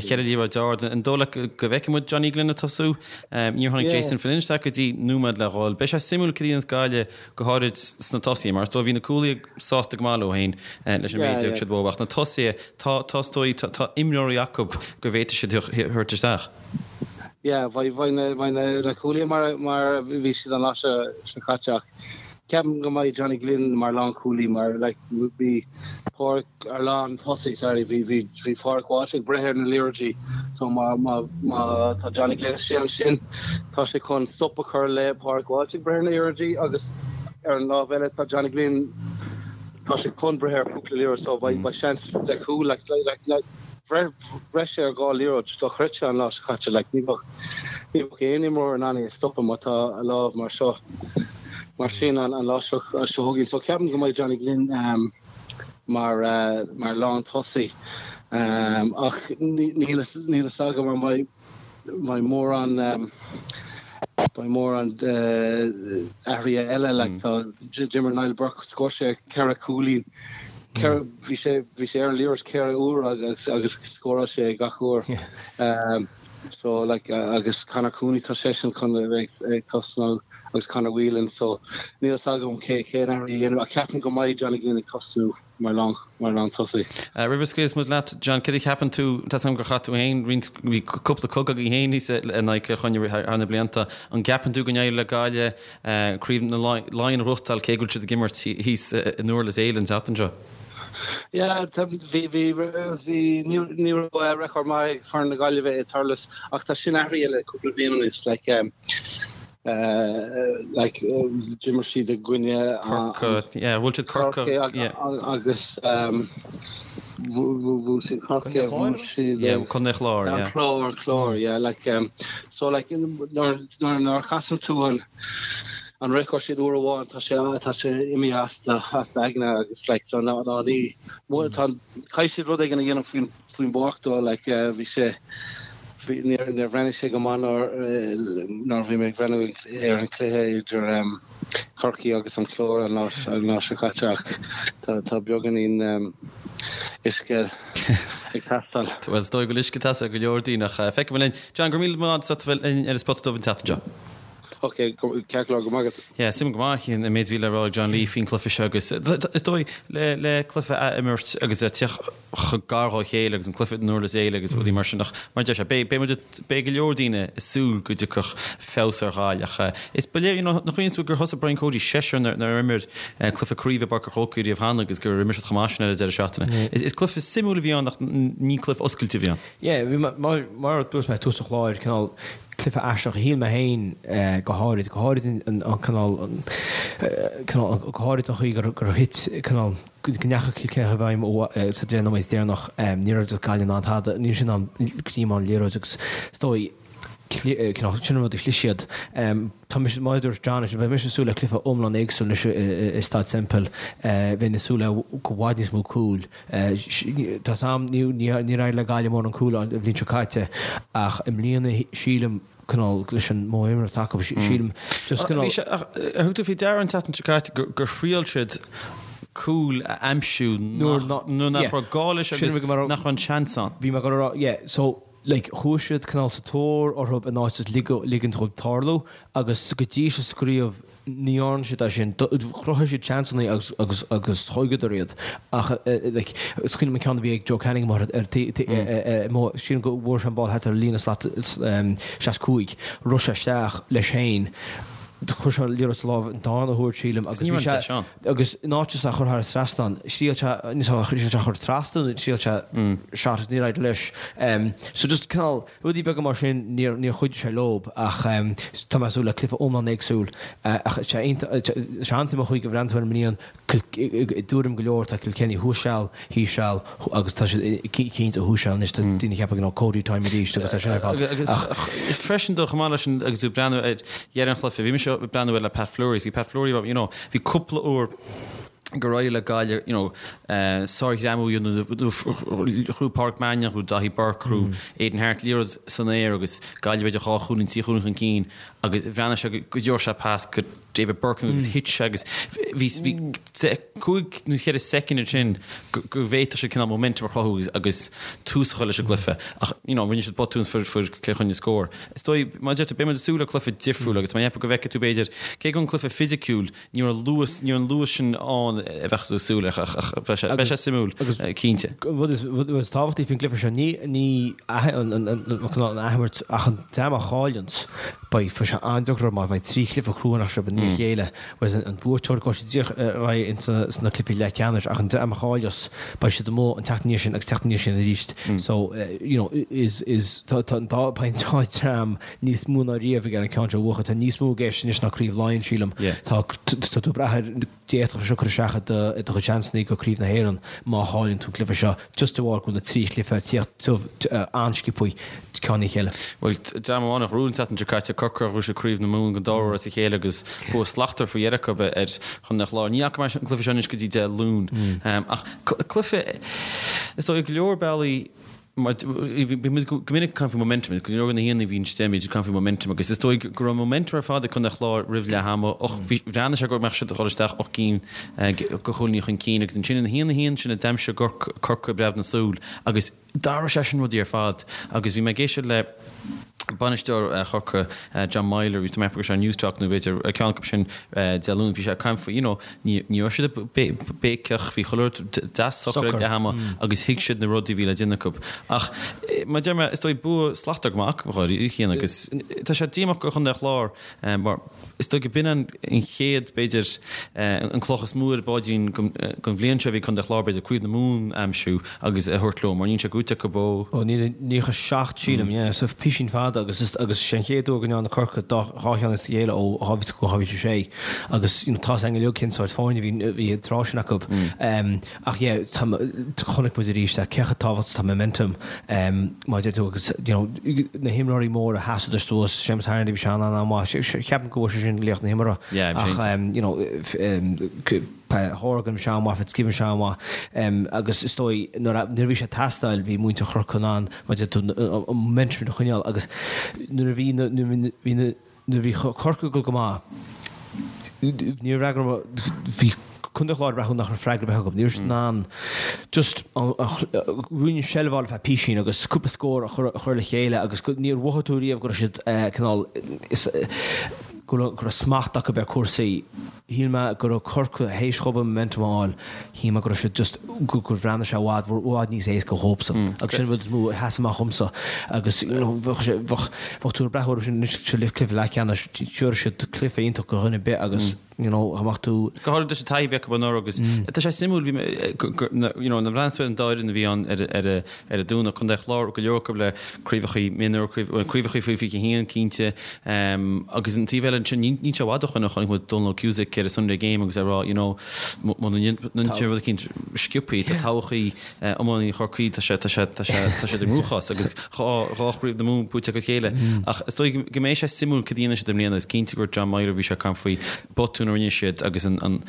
cheithre liathróid ard. An dóigh leat go bhfeicfidh muid Johnny Glynn ag tosú? Níor tháinig Jason Flynn isteach go dtí nóiméad le dhul. Beidh sé suimiúil cad a dhéanfas Gaillimh go háirid sna tosaithe, mar is dóigh bhí na cúlaithe sásta go maith leo féin leis an méid a thug siad uathu ach na tosaithe, tá, tá is dóigh, tá imreoirí acu go bhféadfaidh siad a thabhairt isteach. Yeah, bheidh na cúlaithe mar mar a bhí siad an lá seo caite ach ceapaim go mbeidh Johnny Glynn mar lánchúlaí mar like bhí Pádraig ar lántosaí sorry bhí bhí bhí Pádraig Walsh ag breith ar na liathróidí so má má má tá Johnny Glynn istigh ansin tá sé chun stop a chur le Pádraig Walsh ag breith ar na liathróidí agus ar an lámh eile tá Johnny Glynn tá sé chun breith ar cúpla liathróid so beidh beidh seans le cúl like like like Bhreith sé ar dhá liathróid dochreidte an lá seo caite. Like, ní bheadh. Ní bheadh aon imreoir in ann é a stopadh má tá a lámh mar seo, mar sin an lá seo chugainn. So ceapaim go mbeidh Johnny Glynn mar mar lántosaí ach níl a fhios agam an mbeidh mbeidh mórán beidh mórán athruithe eile like tá d'imir Niall Burke scór sé 4 cúilín bhí sé bhí sé ar an liathróid 4 uair agus agus scóráil sé gach uair. So like agus Conor Cooney tá seisean chun a bheith ag tosnú agus Conor Whelan so níl a fhios agam cé cén athrú a dhéanamh ach ceapaim go mbeidh Johnny Glynn ag tosnú mar lán mar lántosaí. Roimh a scaoilfeas muid leat John, céard a cheapann tú, tá 's agam gur chaith tú féin roinnt, bhí cúpla cogadh agaibh féin thíos in aghaidh Chill Chainnigh thar na blianta, an gceapann tú go n-éireoidh le Gaillimh Craobh na Laighean a ghnóthachtáil cé go bhfuil siad ag imirt thíos i nDurlas Éile an tseachtain seo? Yeah, bhí, bhí, bhí, ní, ní raibh record maith ag foireann na Gaillimhe i Durlas ach tá sin athraithe le cúpla bliain anuas, like, um, uh, like, d'imir siad i gcoinne Corca, yeah, bhuail siad Corca, yeah. agus um, bhuail siad Corca, bhuail siad yeah, Contae an Chláir, yeah. An Clár, an Clár, yeah, like, um, so like, nuair, nuair, nuair a chasann tú an, an record sin uair amháin tá sé tá sé imithe as do as d'aigne agus like so ná ná ní tá caithfidh siad rud éigin a dhéanamh faoin faoin bpáirc dó like bhí sé bhí níor níor bhreathnaigh sé go maith nuair nuair a bhí mé ag breathnú ar an cluiche idir um, Corcaigh agus an Clár an lá an lá seo caite ach tá tá beagáinín um, uisce ag teastáil. Bhuel is dóigh go bhfuil uisce ag teastáil go leor daoine ach feicfidh muid linn. John, go raibh míle maith agat as bheith linn ar an Spota Dubh an tseachtain seo. Ok, ceart go leor, go maith agat. Yeah, suimiúil go maith an méid a bhí le rá ag John Lee faoin cluiche seo agus is dóigh le le cluiche a imirt agus a teacht chomh gar dhá chéile agus an cluiche i nDurlas Éile agus rudaí mar sin ach mar a deir sé beidh beidh muid beidh go leor daoine ag súil go dtiocfadh feabhas ar Ghaillimh ach is ba léir you know nach cuimhin tú gur thosaigh Brian Cody seisear nár nár imir cluiche craoibhe i bPáirc an Chrócaigh riamh cheana agus gur imir siad chomh maith sin ar an deireadh seachtaine. Is is cluiche suimiúil a bhí ann ach ní cluiche oscailte a bhí ann. Yeah, bhí mar mar a dúirt mé ag tús an chláir cineál cluiche aisteach a shíl mé féin go háirid, go háirid an cineál, cineál, go háirid an chaoi gur gur thit cineál, go ndeachaigh Cill Chainnigh i bhfeidhm sa 10 nóiméad deireanach. Ní raibh Gaillimh in ann tada, ní raibh siad in ann greim ar an liathróid agus is dóigh, cineál, sin an rud a chlis siad. Tá mise, mar a dúirt John, beidh mise ag súil le cluiche iomlán éagsúil anois i Staid Semple. Bheinn ag súil le i bhfad níos mó cúil. Tá 's a'm, níor éirigh le Gaillimh mórán cúil an bhliain seo caite ach i mbliana sílim, cineál, leis an modh imeartha atá acu, sílim just cineál. Bhí sé, ach ar thug tú faoi deara an tseachtain seo caite gur thriail siad cúl a aimsiú nuair nach raibh gá leis agus nach raibh an seans ann. Bhí mé ag dul a rá, yeah, so like chuaigh siad cineál sa tóir orthu in áit just ligint dhóibh tarlú agus go dtí seo sa gcraobh ní dhearna siad é sin. Chruthaigh siad seansanna agus agus agus thógadar iad ach like is cuimhin liom an ceann a bhí ag Joe Canning amuigh ar ar sílim go bhfuair sé an ball thart ar líne slat 65 rith sé isteach leis féin chuir sé an liathróid sa lámh an darna huair sílim agus bhí sé Agus in áit just é a chur thar an trasnán, thriail sé, níl 's agam, thriail sé a chur trasna nó thriail sé shot agus níor éirigh leis. So just cineál rudaí beaga mar sin, níor, níor chuidigh sé leob ach tá mé ag súil le cluiche iomlán éagsúil ach sé iontach, sé an-suimiúil an chaoi go bhreathnaíonn tú ar an mbliain, i dtuairim go leor tá Kilkenny thuas seal, thíos seal agus tá siad cinnte thuas seal anois, tá daoine ag ceapadh you know Cody time arís agus é sin ar fad Agus ach. freisin dó chomh maith leis an, agus tú ag breathnú ar dheireadh an chluiche, bhí mise ag breathnú air le Pat Fleury, bhí Pat Fleury, you know, Bhí cúpla uair gur éirigh le Gaillimh, you know, sárghreamú a dhéanamh nó ghnóthaigh Pádraic Mannion, ghnóthaigh Daithí Burke, ghnóthaigh Aidan Harte liathróid san aer agus Gaillimh b'fhéidir dhá chúilín, trí chúilín chun cinn agus bhreathnaigh sé go dtabharfadh sé pas go David Burke agus thit sé agus bhí cúig nó cheithre soicind ansin go bhféadfadh siad cineál momentum a chruthú agus tús a chur leis an gcluiche ach you know rinne siad botún is fuair Cill Chainnigh scór. Is dóigh, mar a deir tú, beidh muid ag súil le cluiche difriúil agus má cheapann go bhfeicfidh tú b'fhéidir, cé go an cluiche fisiciúil, ní raibh an luas, ní raibh an luas sin ann a bheadh tú ag súil leis ach beidh sé, beidh sé suimiúil, cinnte. An rud is, rud is tábhachtaí faoin gcluiche seo, ní, ní an, an, an, an athimirt ach an dream a chailleanns, beidh, beidh sé an-deacair orthu mar beidh trí chluiche crua anois rompu. ndiaidh a chéile. Whereas an buaiteoir gabhfaidh siad díreach ar aghaidh ins na cluichí leathcheannais ach an dream a chailleas beidh siad amuigh an tseachtain ina dhiaidh sin agus tseachtain ina dhiaidh sin arís. So you know is is tá tá an dá beidh an dá dream níos mó ná riamh ag an ceann seo a bhuachan. Tá níos mó i gceist anois ná Craobh Laighean sílim. Tá tá tú ag brath ar d'fhéadfadh sé seo cur isteach i do i do chuid seansanna go Craobh na hÉireann má chailleann tú an cluiche seo just de bharr go bhfuil na 3 chluiche ag tíocht an-sciobthaí ceann i ndiaidh a chéile. Bhuel, dream amháin a ghnóthaigh an tseachtain seo caite, Corcaigh, ghnóthaigh siad Craobh na Mumhan den dara huair as a chéile agus bua slachtmhar faoi dheireadh acu ar Chontae an Chláir. Ní fhaca mé an cluiche seo anois go dtí Dé Luain. Ach cluiche, is dóigh, go leor bealaí, mar bhí muid go minic ag caint faoi momentum, go leor de na haíonna a bhíonn istigh, bíonn siad ag caint faoi momentum agus is dóigh go raibh momentum ar fad ag Contae an Chláir roimh leath ama, bhreathnaigh sé go mbeadh siad ag dul isteach 8 gcinn de chúilíní chun cinn agus ansin ina 1-1 sin a d'aimsigh Corcaigh breab na súl agus D'athraigh sé sin rudaí ar fad agus bhí mé ag éisteacht le bainisteoir Chorcaí, John Meyler, bhí mé ag ceapadh go raibh sé ar Newstalk nó b'fhéidir ceann acu sin Dé Luain, bhí sé ag caint faoi, you know, ní raibh siad ag béiceach, bhí chuile rud deas socair ag leath ama agus thuig siad na rudaí a bhí le déanamh acu. Ach mar a deir mé, is dóigh bua slachtmhar go maith acu, a Chian, agus tá sé díomách do Chontae an Chláir mar Is dóigh go b'in an chéad, b'fhéidir, an cloch is mó ar a bpaidrín don bhliain seo a bhí Contae an Chláir, b'fhéidir, Craobh na Mumhan a aimsiú agus a thabhairt leo, mar níl sé gnóthaithe acu ó. Ó 1997, sílim, yeah. So písín fada agus is agus sé an chéad uair go ndearna Corcaigh dá dhá cheann as a chéile ó 2005 go 2006 agus you know tá's againn uilig cén sórt foirne a bhí a bhí an tráth sin acu. Ach yeah, tá, chonaic muid arís cé chomh tábhachtach atá momentum mar a deir tú agus you know na himreoirí móra sheasadar suas, Séamus Harnedy bhí sé an-an-mhaith, ceapaim go bhfuair sé sin laoch na himeartha ach you know Horgan bhí sé an-mhaith, Fitzgibbon bhí sé an-mhaith agus is dóigh nuair a bhí sé ag teastáil bhí muintir Chorcaí in ann mar a deir tú an momentum a choinneáil agus nuair a bhí na bhí na Nuair a bhí Corcaigh ag dul go maith, ní raibh freagra, bhí Contae an Chláir ag breathnú nach raibh freagra ar bith acu. Ní raibh siad in ann just ruainne seilbh a fháil ar feadh písín agus cúpla scór a chur le chéile agus níor mhothaigh tú riamh go raibh siad cineál, go raibh smacht acu ar chúrsaí. Shíl mé go raibh Corcaigh théis dhóibh an momentum a fháil, shíl mé go raibh siad just, gur bhreathnaigh sé i bhfad, i bhfad níos éasca dhóibhsan. Agus sin an rud is mó a sheas amach dhomsa. Agus you know bheadh sé, bheadh, bheadh tú ag breathnú orthu sin anois sa cluiche leathcheannais, tiúrfaidh siad cluiche iontach do dhuine ar bith agus you know dá mbeadh tú. Go háirithe leis an taithí a bhí acu anuraidh agus tá sé suimiúil, bhí mé, go, go, you know, nuair a bhreathnaíos ar an dá fhoireann a bhí ann ar, ar, ar an Domhnach, Contae an Chláir, go leor acu le craobhacha mionúir, craobhacha faoi 21 cinnte, agus an taobh eile ansin, níl sé i bhfad ó shoin a chonaic muid Donal Ó Cusack ar an Sunday Game agus é ag rá, you know, muna ndéanann sé rud eicínt sciobthaí, tá todhchaí iománaí Chorcaí, tá sé, tá sé, tá sé, tá siad i gcruachás agus dhá, dhá chraobh na Mumhan buaite acu a chéile. Ach is dóigh go mbeidh sé suimiúil cad a dhéanfaidh siad i mbliana, is cinnte go raibh John Meyler, bhí sé ag caint faoi botún a rinne siad agus an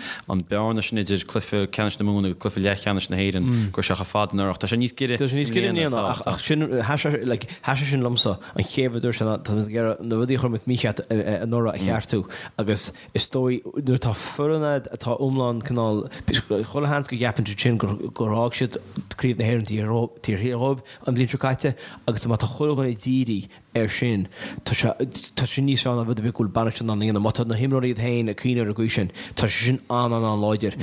bearna sin idir cluiche ceannais na Mumhan agus cluiche leathcheannais na hÉireann, go raibh sé chomh fada anuraidh. Tá sé níos giorra Tá sé níos giorra i mbliana, ach sin, like, sheas sé sin liomsa an chéad rud a dúirt sé ná tá mé ag iarraidh na rudaí a chuir muid mícheart anuraidh a cheartú agus is dóigh nuair atá foireann a'd atá iomlán cineál, chuile sheans go gceapann siad sin gur fhág siad Craobh na hÉireann taobh thiar dhóibh an bhliain seo caite agus má tá chuile dhuine dírithe air sin, tá sé, tá sé níos fearr ná rud ar bith go bhfuil bainisteoir in ann a dhéanamh. Má tá na himreoirí iad féin ag cuimhneamh ar an gcaoi sin, tá sé sin an-an-an-láidir.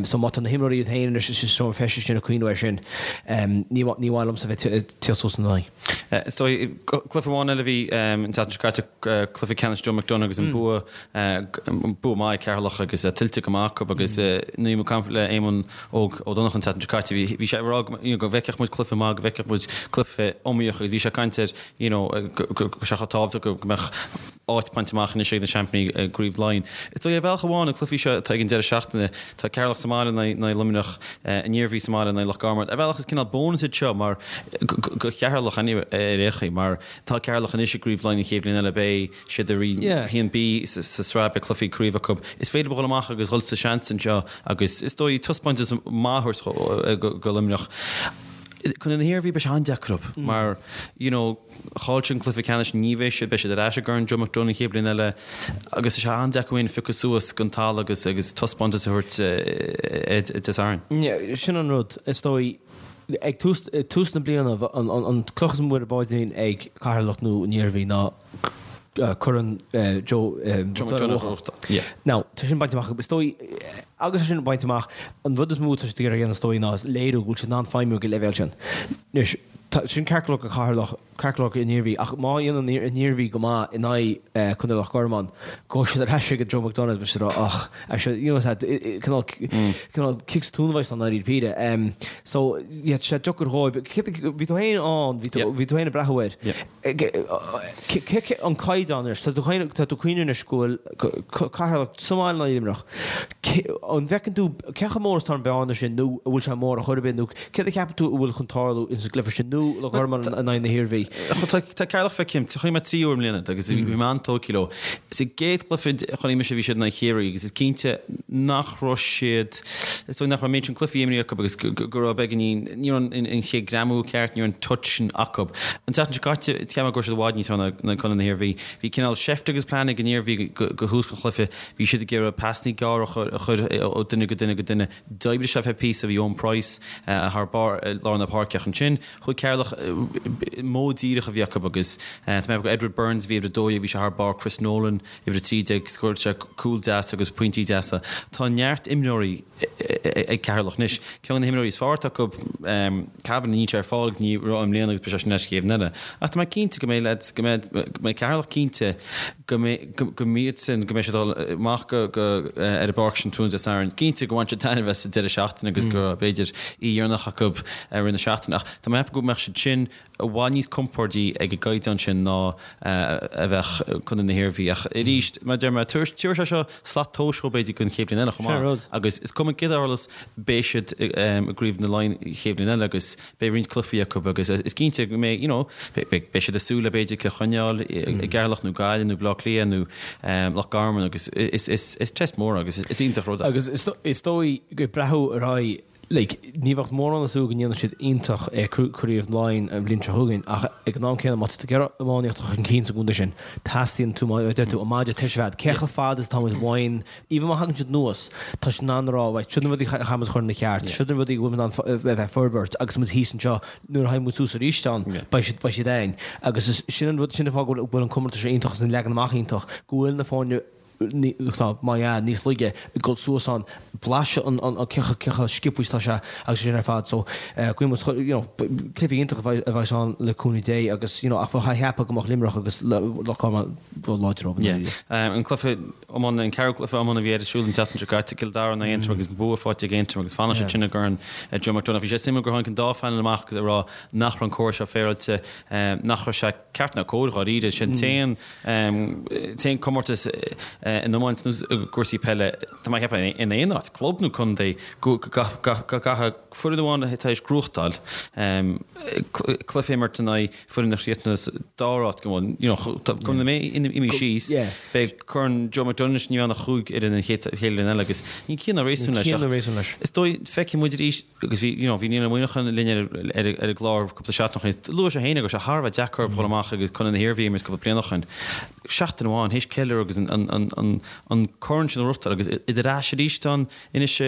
So má tá na himreoirí iad féin anois sa seomra feistis sin ag cuimhneamh air sin, ní, ní maith liomsa bheith ag tíocht suas ina n-aghaidh. Is dóigh, cluiche amháin eile a bhí an tseachtain seo caite, cluiche ceannais Joe McDonagh agus an bua, bua maith ag Ceatharlach agus tuillte go maith acu agus nuair a bhí mé ag caint le Éamonn Óg Ó Donnchadha an tseachtain seo caite, bhí sé ag rá go bhfeicfeadh muid cluiche maith, go bhfeicfeadh muid cluiche iomaíoch agus bhí sé ag caint ar you know go raibh sé chomh tábhachtach go mbeadh áit bainte amach anois ag na seaimpíní i gCraobh Laighean. Is dóigh ar bhealach amháin na cluichí seo atá ag an deireadh seachtaine, tá Ceatharlach sa mbaile in aghaidh Luimneach, an Iarmhí sa mbaile in aghaidh Loch Garman. Ar bhealach is cineál bónas iad seo mar go Cheatharlach anyway ar aon chaoi mar tá Ceatharlach anois i gCraobh Laighean an chéad bhliain eile beidh siad i Roinn 1B sa sraith beidh cluichí craoibhe acu. Is féidir leo dhul amach agus dhul sa seans anseo agus is dóigh taispeántas maith a thabhairt go Luimneach. Contae na hIarmhí beidh sé an-deacair orthu mar you know chaill siad an cluiche ceannais ní bheidh siad beidh siad ar ais i gCorn Joe McDonagh an chéad bhliain eile agus tá sé an-deacair orthu piocadh suas den talamh agus agus taispeántas a thabhairt Dé Sathairn. Yeah, sin an rud is dóigh ag tús tús na bliana an cloch is mó ar a bpaidrín ag Ceatharlach nó an Iarmhí ná Corn Joe McDonagh. Now, tá sin bainte amach acu. Is dóigh, agus é sin bainte amach, an rud is mó atá siad ag iarraidh a dhéanamh is dóigh ná léiriú go bhfuil siad in ann feidhmiú ag an leibhéal sin. Anois, Sin ceart go leor do Cheatharlach, ceart go leor don Iarmhí, ach má dhéanann an Iarmhí go maith in aghaidh Contae Loch Garman, gabhfaidh siad ar ais ag Joe McDonagh beidh siad ag rá ach actually you know cineál cineál cic sa tóin a bheas ann i ndáiríre. So yeah tá sé deacair dhóibh. Bhí tú féin ann, bhí tú bhí tú féin ag breathnú air. Cé an caighdeán anois, tá tú tá tú ag cuimhneamh anois go bhfuil Ceatharlach sa mbaile in aghaidh Luimneach. An bhfeiceann tú cé chomh mór is atá an bhearna sin nó an bhfuil sé mór ar chor ar bith nó céard a cheapann tú a bhfuil chun tarlú ins an gcluiche sin nó Loch Garman in aghaidh na hIarmhí? Tá Ceatharlach feicthe agam, chonaic mé 3 uair i mbliana agus bhí mé an-tógtha leo. Sa gcéad chluiche a chonaic mise bhí siad in aghaidh Chiarraí agus is cinnte nach raibh siad, is dóigh nach raibh an méid sin cluichí imrithe acu agus go raibh beagáinín, ní raibh an chéad greamú ceart, ní raibh an touch sin acu. An tseachtain seo caite, cheap mé go raibh siad i bhfad níos fearr ná Contae na hIarmhí. Bhí cineál seift agus plean ag an Iarmhí go thús an chluiche. Bhí siad ag iarraidh pasanna gearra a chur ó duine go duine go duine. D'oibrigh sé feadh píosa, bhí Eoin Price thar barr i lár na páirce ach ansin chuaigh Ceatharlach, modh díreach a bhí acu agus tá mé ag ceapadh Edward Burns a bhí uimhir 12, bhí sé thar barr, Chris Nolan uimhir 13, scóráil sé cúl deas agus pointí deasa. Tá neart imreoirí ag Ceatharlach anois. Ceann de na himreoirí is fearr atá acu, Kavanagh, níl sé ar fáil agus ní raibh i mbliana agus beidh sé sin leis an chéad bhliain eile. Ach tá mé cinnte go mbeidh leaids, go mbeidh, go mbeidh Ceatharlach cinnte go mbeidh, go mbeidh sin, go mbeidh siad ag dul amach go, go, ar an bpáirc sin tráthnóna Dé Sathairn. Cinnte go bhain siad taitneamh as an deireadh seachtaine agus go raibh, b'fhéidir, oíche dheireanach acu i rith na seachtaine. Ach tá mé ag ceapadh go mbeadh siad sin i bhfad níos compordaí ag an gcaighdeán sin ná a bheadh Contae na hIarmhí. Ach arís, mar a deir mé, tabharfaidh sé seo slat tomhais dhóibh b'fhéidir don chéad bhliain eile chomh maith. Agus is cuma céard a tharlós, beidh siad i gCraobh na Laighean an chéad bhliain eile agus beidh roinnt cluichí acu agus is cinnte go mbeidh, you know, beidh siad ag súil le b'fhéidir Cill Chainnigh i gCeatharlach nó Gaillimh nó Baile Átha Cliath nó Loch Garman agus is test mór agus is iontach rud é. Agus is dóigh ag breathnú ar aghaidh Like, ní bheadh mórán ag súil go ndéanfaidh siad iontach i Craobh Laighean an bhliain seo chugainn ach ag an am céanna má tá tú ag iarraidh iomaíocht a chur chun cinn sa gcontae sin, teastaíonn tú, mar a deir tú, an maide tuirse a bheith agat. Cé chomh fada is atá muid uainn, even má thagann siad anuas, tá siad in ann a rá, right, siod na rudaí a chaithfidh muid a chur ina cheart, siod na rudaí a bhfuil muid in ann a bheith ag forbairt agus muid thíos anseo, nuair a thagann muid suas arís ann, beidh siad, beidh siad againn. Agus is sin an rud, sin an fáth go bhfuil an comórtas seo iontach agus an leagan amach iontach, go bhfuil na foirne, tá, má ea, níos laige ag dul suas ann, blaiseadh an, an, cé chomh sciobtha is atá sé agus sin ar fad. So, guím os, you know, cluiche iontach a bheas ann le cúnamh Dé agus, you know, ach bheadh a cheapadh go mbeadh Luimneach agus Loch Garman láidir rompu. Yeah. An cluiche iomána, an ceathrú cluiche iomána a bhí ar siúl an tseachtain seo caite, Cill Dara in aghaidh Aontroim agus bua faighte ag Aontroim agus fanann siad sin i gCorn Joe McDonagh. Bhí sé suimiúil gur tháinig an dá phainéal amach agus ag rá nach raibh an córas seo féaráilte, nach raibh sé ceart ná cóir dháiríre. Sin an t-aon comórtas in iomáint nó i gcúrsaí peile, tá mé ag ceapadh, in aon áit, club nó contae, go gcaithfidh foireann amháin atá tar éis gnóthachtáil cluiche a imirt in aghaidh foireann a chríochnaigh sa dara háit, go bhfuil, you know, go mbeidh imithe síos, beidh Corn Joe McDonagh anois, ní bheidh ann ach chúig fhoireann an chéad bhliain eile agus níl ciall ná réasún leis ach is dóigh, feicfidh muid arís. Agus bhí, you know, bhí Niall Ó Muineacháin linn ar, ar, ar an gclár cúpla seachtain ó shin. Luaigh sé féin go raibh sé thar a bheith deacair dhul amach agus Contae na hIarmhí a imirt cúpla bliain ó shin. Seachtain amháin, théis ceiliúradh agus an, an, an, an, an corn sin a ghnóthachtáil agus iad ar ais arís ann anois sa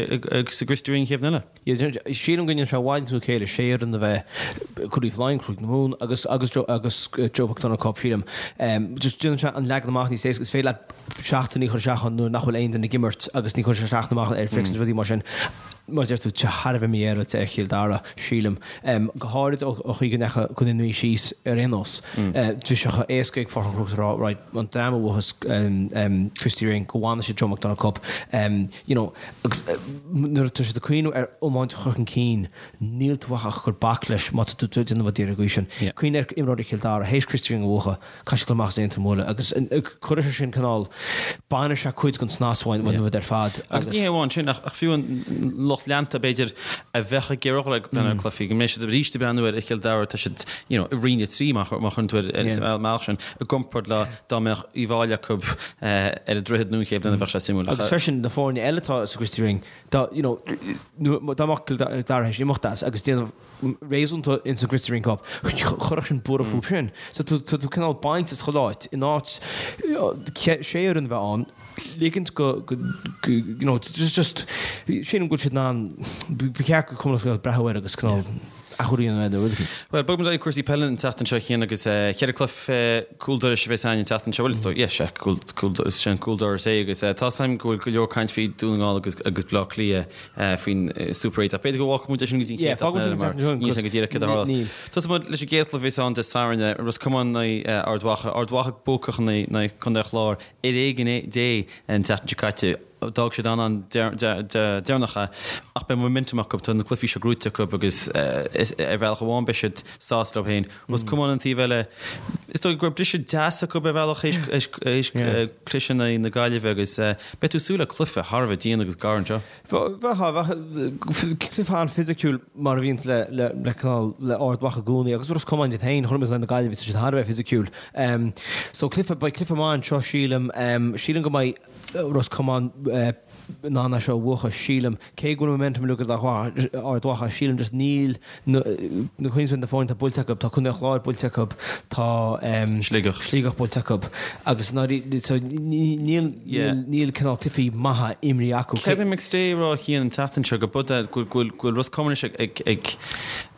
gChriosty Ring an chéad bhliain eile. Yeah, sílim go ndéanann sé i bhfad níos mó céille sé fhoireann a bheith, Craobh Laighean, Craobh na Mumhan agus, agus Joe, agus Joe McDonagh Cup, sílim. Just déanann sé an leagan amach níos éasca. Is féidir leat seachtainí a chur isteach ann nuair nach bhfuil aon duine ag imirt agus ní chuireann sé isteach amach ar fix agus rudaí mar sin. Mar a deir tú, tá sé thar a bheith mífhéaráilte ar Chill Dara, sílim. Go háirid ó chaoi go ndeachaigh Contae na Mí síos ar aon nós. Bhí sé chomh éasca ag Pháirc an Chrócaigh a rá, right, an dream a bhuafas Christy Ring, go bhfanfaidh siad Joe McDonagh Cup. You know, agus nuair atá siad ag cuimhneamh ar iomáint a chur chun cinn, níl tú ach ag cur bac leis má tá tú ag déanamh rud ar an gcaoi sin. Cuimhnigh ar imreoirí Chill Dara, théis Christy Ring a bhuachan, Caithfidh siad dul amach as Aontroim a bhualadh agus cuirfidh sé sin cineál, bainfidh sé cuid den snas uainn uainn rud ar fad Agus ní hé amháin sin ach fiú an lucht leanta b'fhéidir a bheadh ag iarraidh dhul ag breathnú ar cluichí, go mbeidh siad arís ag breathnú ar Chill Dara, tá siad you know i Roinn 3 má chuireann tú ar an mbealach sin i gcomparáid le dá mbeadh Uíbh Fhailí acu ar an Droichead nó an chéad bhliain a bheadh sé suimiúil. Agus freisin na foirne eile atá sa Christy Ring, dá you know dá mbeadh Cill Dara théis imeacht as agus déanamh réasúnta ins an Christy Ring Cup. Chuirfeadh sin buaireamh fúthu sin. So tá tú cineál baint as chuile áit, in áit sé fhoireann a bheith ann, ligint go, you know, just, just, sílim go bhfuil siad in ann, ba cheart go Cumann Lúthchleas Gael breathnú air agus cineál. athrú a dhéanamh air nó rud éicint. Bhuel, bogfaidh muid ar aghaidh cúrsaí peile an tseachtain seo a Chian agus cheithre cluiche cúl dorais a bheas againn an tseachtain seo. Bhuel, is dóigh, yeah, sea, cúl, cúl, is é an cúl dorais é agus tá 's agam go bhfuil go leor caint faoi Dún na nGall agus, agus Bleá Cliath faoin Super 8 ach b'fhéidir go bhfágfaidh muid é sin go dtí an chéad seachtain eile mar níl 's agam go díreach céard a tharlós. Tosóidh muid leis an gcéad chluiche a bheas ann Dé Sathairn, Ros Comáin in aghaidh Ard Mhacha. Ard Mhacha buacach in aghaidh Contae an Chláir ar éigean Dé an tseachtain seo caite. D'fhág siad an-an deireanach é ach beidh momentum acu, tá na cluichí seo gnóite acu agus ar bhealach amháin beidh siad sásta leo féin. Ros Comáin an taobh eile, is dóigh go raibh briseadh deas acu ar bhealach théis cliseadh in aghaidh na Gaillimhe agus beidh tú ag súil le cluiche thar a bheith dian agus gar anseo. Bheadh, bheadh cluiche an-fhisiciúil mar a bhíonns le le cineál le Ard Mhacha i gcónaí agus Ros Comáin iad féin, chonaic muid in aghaidh na Gaillimhe, tá siad thar a bheith fisiciúil. So cluiche, beidh cluiche maith anseo sílim. Sílim go mbeidh Ros Comáin in ann é seo a bhuachan, sílim. Cé go bhfuil momentum uilig ag Ard Mhacha, sílim just níl na cuimhnigh na foirne atá buailte acu, tá Contae an Chláir buailte acu, tá Sligeach. Sligeach buailte acu agus so níl níl cineál cluichí maithe imrithe acu. Kevin McStay ag rá a Chian an tseachtain seo go bud go bhfuil Ros Comáin anois ag ag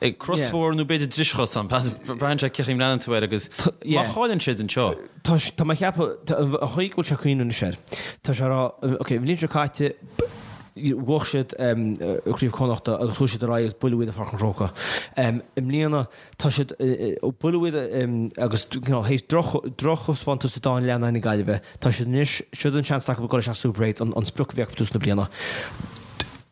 ag crosbhóthar nó b'fhéidir driseach ann, braitheann sé cén chaoi a mbreathnaíonn tú air agus má chailleann siad anseo. Tá tá mé ag ceapadh an chaoi go bhfuil sé ag cuimhneamh anois air, tá sé ag rá ok an bhliain seo caite bhuaigh siad Craobh Chonnachta agus chuaigh siad ar aghaidh agus buaileadh iad i Pháirc an Chrócaigh. I mbliana tá siad, buaileadh iad agus you know théis drochthaispeántas sa dá leath in aghaidh na Gaillimhe, tá siad anois, siod an seans acu dul isteach Super 8, an sprioc a bhí acu tús na bliana.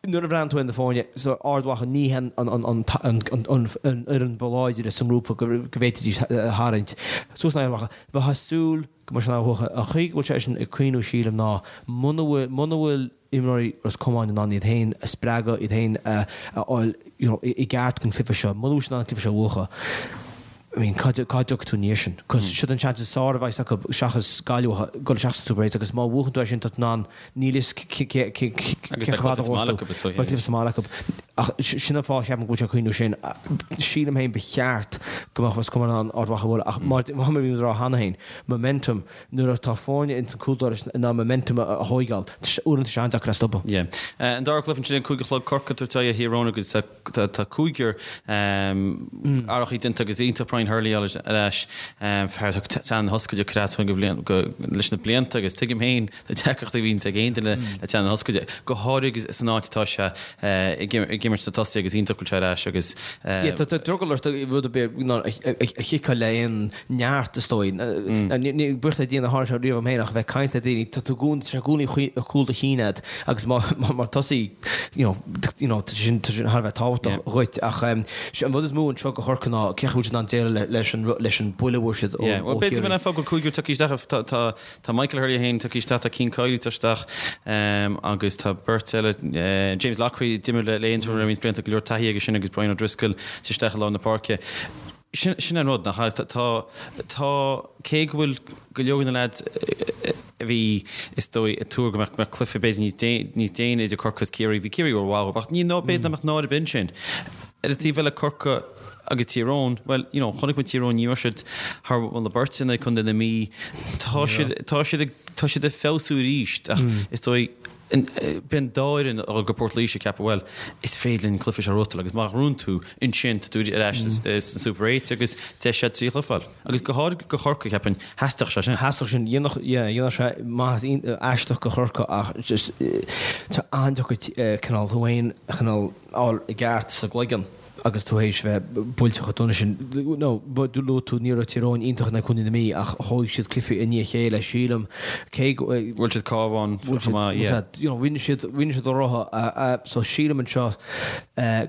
Nuair a bhreathnaíonn tú ar na foirne, so Ard Mhacha ní hin an fhoireann ba láidre sa ngrúpa go bhféadfaidís a tharraingt suas in aghaidh Ard Mhacha. Bheifeá ag súil go mbeadh siad in ann a bhuachan. An chaoi go bhfuil seisean ag cuimhniú sílim ná muna bhfuil, muna bhfuil imreoirí Ros Comáin in ann iad féin a spreagadh, iad féin a fháil you know i gceart don chluiche seo, muna bhfuil siad in ann an cluiche seo a bhuachan, I mean cá dtiocfaidh tú ina dhiaidh sin? Cos siod an seans is fearr a bheas acu seachas Gaillimh a dhul isteach sa Super 8 agus má bhuachann tú é sin tá tú in ann níl fhios cé Agus beidh cluiche sa mbaile acu is dóigh. Beidh cluiche sa mbaile acu. Ach sin an fáth a cheapaim go bhfuil sé ag cuimhniú sin. Sílim féin ba cheart go mbeadh Ros Comáin in ann Ard Mhacha a bhualadh ach mar a bhí muid ag rá cheana féin, momentum, nuair atá foirne ins an cúl dorais in ann momentum a thóigeáil, uaireanta tá sé an-deacair é a stopadh. Yeah. An dara cluiche ansin ag 5 a chlog Corcaigh ag tabhairt aghaidh ar Thír Eoghain agus Tá cúigear athrachaí déanta agus iontach Brian Hurley ar ais, fear atá teann na hioscaide ag cur as leis na blianta agus tuigim féin na deacrachtaí a bhíonns ag aon duine le teann na hioscaide, go háirithe san áit atá sé ag imirt sna tosaithe agus iontach go bhfuil sé ar ais agus. Tá drogall ort rud ar bith a chiceáil le aon neart is dóigh. Buíochas le Dia nár tharla sé riamh dom féin ach a bheith ag caint le daoine, tá tú i gcónaí, tá sé i gcónaí ar chúl do chinn agat agus mar tosaí, you know, you know, tá sin, tá sin thar a bheith tábhachtach dhuit ach an rud is mó anseo do Chorcaigh ná cén chaoi a bhfuil siad in ann déileáil leis an, leis an buille a bhfuair siad ó Yeah, well b'fhéidir go mbeidh an fáth go bhfuil cúigear tagtha isteach, tá, tá, tá Michael Hurley féin tagtha isteach, tá Cian Kiely tagtha isteach agus tá beirt eile, James Loughrey, d'imir le Aontroim roinnt blianta, go leor taithí aige sin agus Brian O'Driscoll tagtha isteach i lár na páirce. Sin an rud, nach ea? Tá, tá, cé go bhfuil go leor de na leaids a bhí, is dóigh, ag tuar go mbeadh, mbeadh cluiche b'fhéidir níos dé, níos déine idir Corcaigh is Ciarraí, bhí Ciarraí rómhaith dóibh, ach ní, ná, b'fhéidir nach mbeadh náire ar bith ansin. Ar an taobh eile, Corcaigh agus Tír Eoghain, bhuel, you know, chonaic muid Tír Eoghain, ní raibh siad thar mholadh beirte in aghaidh Contae na Mí. Tá siad, tá siad ag, tá siad ag feabhsú arís ach is dóigh, Beidh an dá fhoireann ag dul go Port Laoise ag ceapadh, bhuel, is féidir linn an cluiche seo a ghnóthachtáil agus má ghnóthaíonn tú ansin tá tú ar ais sa Super 8 agus deis agat trí chluiche a fháil. Agus go háirithe do Chorcaigh, cheapfainn, theastódh sé sin. Theastódh sin. Dhéanfadh, yeah, dhéanfadh sé maitheas aisteach do Chorcaigh ach just tá an-deacair cineál tú féin a chineál fháil i gceart sa gcloigeann. agus tú théis bheith buailte chomh dona sin. No, luaigh tú, ní raibh Tír Eoghain iontach in aghaidh Chontae na Mí ach thóig siad cluichí i ndiaidh a chéile, sílim, cé go. Bhuail siad Cabhán chomh maith, yeah. You know, rinne siad, rinne siad a rogha, so sílim anseo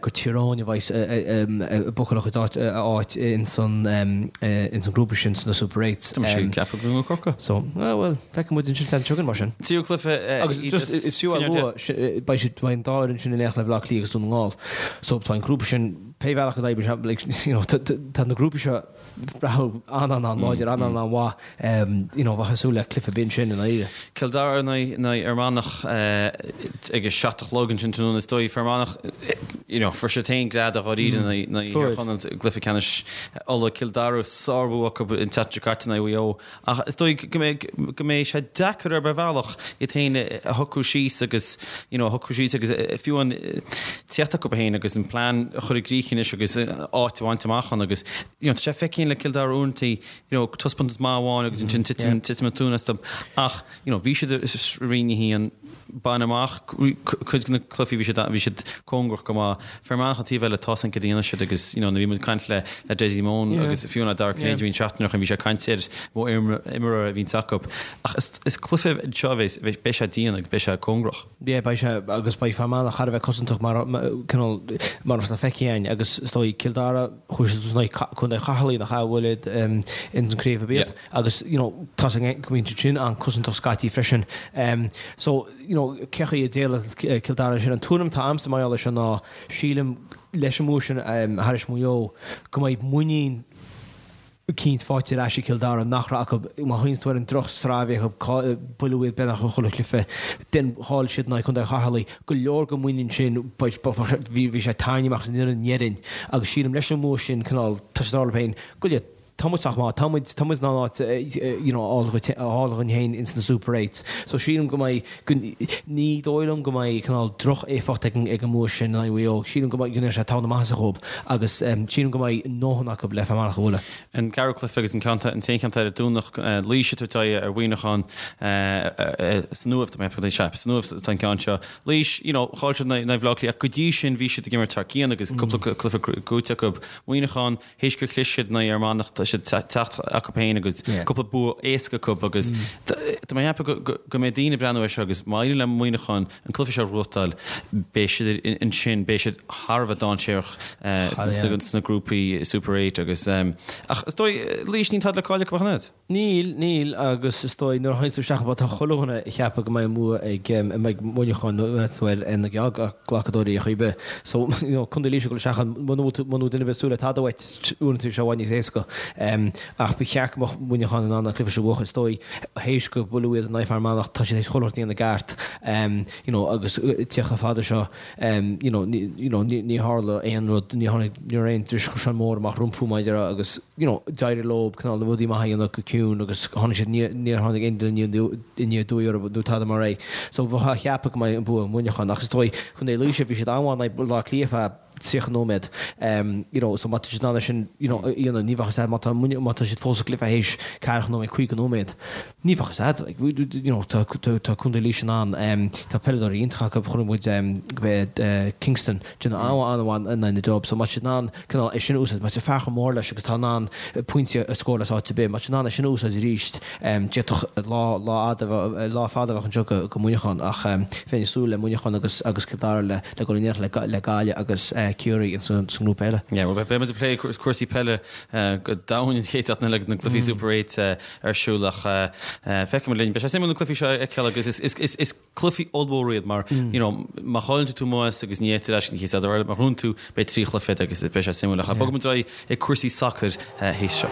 gur Tír Eoghain a bheas ag buachan a chuid áit, a áit ins an, ins an grúpa sin sna Super Eights. Tá mise ag ceapadh go Corcaigh. So, well, feicfidh muid ansin an tseachtain seo chugainn mar sin. Tríú cluiche, Agus just, is fiú a lua, beidh siad, beidh an dá fhoireann sin in éineacht le Baile Átha Cliath agus Dún na nGall. So tá an grúpa sin, pé bhealach a d'oibrigh sé, like, you know, tá na grúpaí seo breá an-an-an-láidir, an-an-an-mhaith, you know, bheifeá ag súil le cluiche binn sin i ndáiríre. Cill Dara in aghaidh Fhear Manach ag a 7 a chlog ansin tráthnóna is dóigh. Fear Manach. You know, fuair siad féin greadadh dháiríre in aghaidh Thír Chonaill i gcluiche ceannais Uladh, Cill Dara, sárbhua acu an tseachtain seo caite in aghaidh Mhaigh Eo. Ach is dóigh go mbeidh, go mbeidh sé deacair ar bhealach iad féin a shocrú síos agus, you know, a shocrú síos agus fiú an tíocht acu féin agus an plean a chur i gcrích anois agus áit a bhaint amach ann agus, you know, tá sé feicthe le Cill Dara uaireanta, you know, taispeántas maith amháin agus ansin titeann, titeann an tóin astu. Ach, you know, bhí siad i Roinn 1, baineadh amach cuid de na cluichí, bhí siad, bhí siad cóngarach go maith. Fear Manach an taobh eile, tá san cad a dhéanfaidh siad agus, you know, nuair a bhí muid ag caint le, le Dessie Mone agus fiú le Dara Cinnéide bhí an seachtain ó shin, bhí sé ag caint ar mhodh imeartha a bhíonns acu. Ach is, is cluiche anseo a bheas, beidh sé dian agus beidh sé cóngarach. Yeah, beidh sé, agus beidh Fear Manach thar a bheith cosantach mar, cineál, mar atá feicthe againn agus is dóigh Cill Dara, chuaigh siad in aghaidh Contae Cheatharlaigh nach ea, a bhuail iad ins an craobh ab iad. Agus you know tá sé go mbíonn siad sin an-cosantach scaití freisin. So you know cé chaoi a déileálfaidh Cill Dara leis sin. An tuairim atá a'msa mar gheall air seo ná sílim leis an mbua sin thairis Maigh Eo go mbeidh muinín eicínt faighte ar ais ag Cill Dara nach raibh acu má chuimhníonn tú ar an droch-sraith a bhí acu buaileadh iad beagnach i chuile chluiche then chaill siad in aghaidh Contae Cheatharlaigh go leor den mhuinín sin bhí sé tarraingthe amach as an fhoireann déarfainn agus sílim leis an mbua sin cineál tá siad ag rá leo féin go leor Tá muid sách maith, tá muid, tá muid in ann áit you know a fháil dhúinn féin ins na Super Eights. So sílim go mbeidh, go, ní dóigh liom go mbeidh cineál droch-éifeacht ag an, ag an mbua sin in aghaidh Mhaigh Eo. Sílim go mbeidh, go ndéanfaidh sé togha na maitheasa dhóibh agus sílim go mbeidh a ndóthain acu le Fear Manach a bhualadh. An ceathrú cluiche agus an ceann, an t-aon cheann ar an Domhnach, Laois ag tabhairt aghaidh ar Mhuineachán san Uaimh, tá mé ag ceapadh, sea, san Uaimh atá an ceann seo. Laois, you know, chaill siad in aghaidh Bhaile Átha Cliath ach go dtí sin bhí siad ag imirt thar cionn agus cúpla cluiche buaite acu. Muineachán, Théis gur chlis siad in aghaidh Fhear Manach tá siad ag teacht acu féin agus cúpla bua éasca acu agus tá mé ag ceapadh go mbeidh daoine ag breathnú air seo agus má éiríonn le Muineachán an cluiche seo a ghnóthachtáil beidh siad ansin, beidh siad thar a bheith dainséarach sna grúpaí Super 8 agus ach is dóigh Laois níl tada le cailleadh acu ach an oiread. Níl, níl, agus is dóigh nuair a théanns tú isteach an tá chuile dhuine ag ceapadh go mbeidh an bua ag, a mbeidh Muineachán nó tú ar na geallghlacadóirí ar chaoi ar bith. So, you know, Contae Laoise ag dul isteach ann, muna bhfuil tú, muna bhfuil duine ar bith ag súil le tada uait, uaireanta bíonn sé i bhfad níos éasca. Ach ba cheart go mbeadh Muineachán in ann an cluiche seo a bhuachan, is dóigh, théis gur buaileadh iad in aghaidh Fear Manach, tá siad théis chuile shórt a dhéanamh i gceart, you know, agus tíocht chomh fada seo. You know, you know, ní tharla aon rud, ní tháinig, ní raibh aon dris mór amach rompu mar a déarfá agus, you know, d'éirigh leo cineál na rudaí maithe a dhéanamh go ciúin agus tháinig siad, níor tháinig aon duine aniar aduaidh orthu nó tada mar é. So bheifeá ag ceapadh go mbeidh an bua ag Muineachán ach is dóigh, Contae Laoise, bhí siad an-mhaith in aghaidh Baile Átha Cliath feadh 30 nóiméad. You know, so má tá siad in ann é sin, you know, a dhéanamh, ní bheadh a fhios agat má tá, má tá siad fós sa gcluiche théis ceathracha nóiméad, 50 nóiméad. Ní bheadh a fhios agat, like, you know, tá, tá Contae Laoise in ann, tá peileadóirí iontacha acu, chonaic muid go Kingston, déanamh an-mhaith in aghaidh na Dubs, so má tá siad in ann cineál é sin a úsáid, má tá fear chomh mór leis agus tá in ann pointí a scóráil as áit ar bith, má tá siad in ann é sin a úsáid arís, d'fhéadfadh lá, lá fhada, lá fada a bheith anseo go, go Muineachán ach bheinn ag súil le Muineachán agus, agus Cill Dara le, le dul in éineacht le, le Gaillimh agus Ciarraí in san, sa ngrúpa eile. Yeah, well beidh muid ag plé cúrsaí peile go domhain an chéad seachtain eile agus na cluichí Super 8 ar siúl ach feicfidh muid linn. Beidh sé suimiúil na cluichí seo a fheiceáil agus is cluichí ollmhóra iad mar you know má chailleann tú amuigh agus ní fhéadtar leis an chéad eile má ghnóthaíonn tú beidh 3 chluiche agat agus beidh sé suimiúil ach bogfaidh muid ar aghaidh ag cúrsaí sacair théis seo.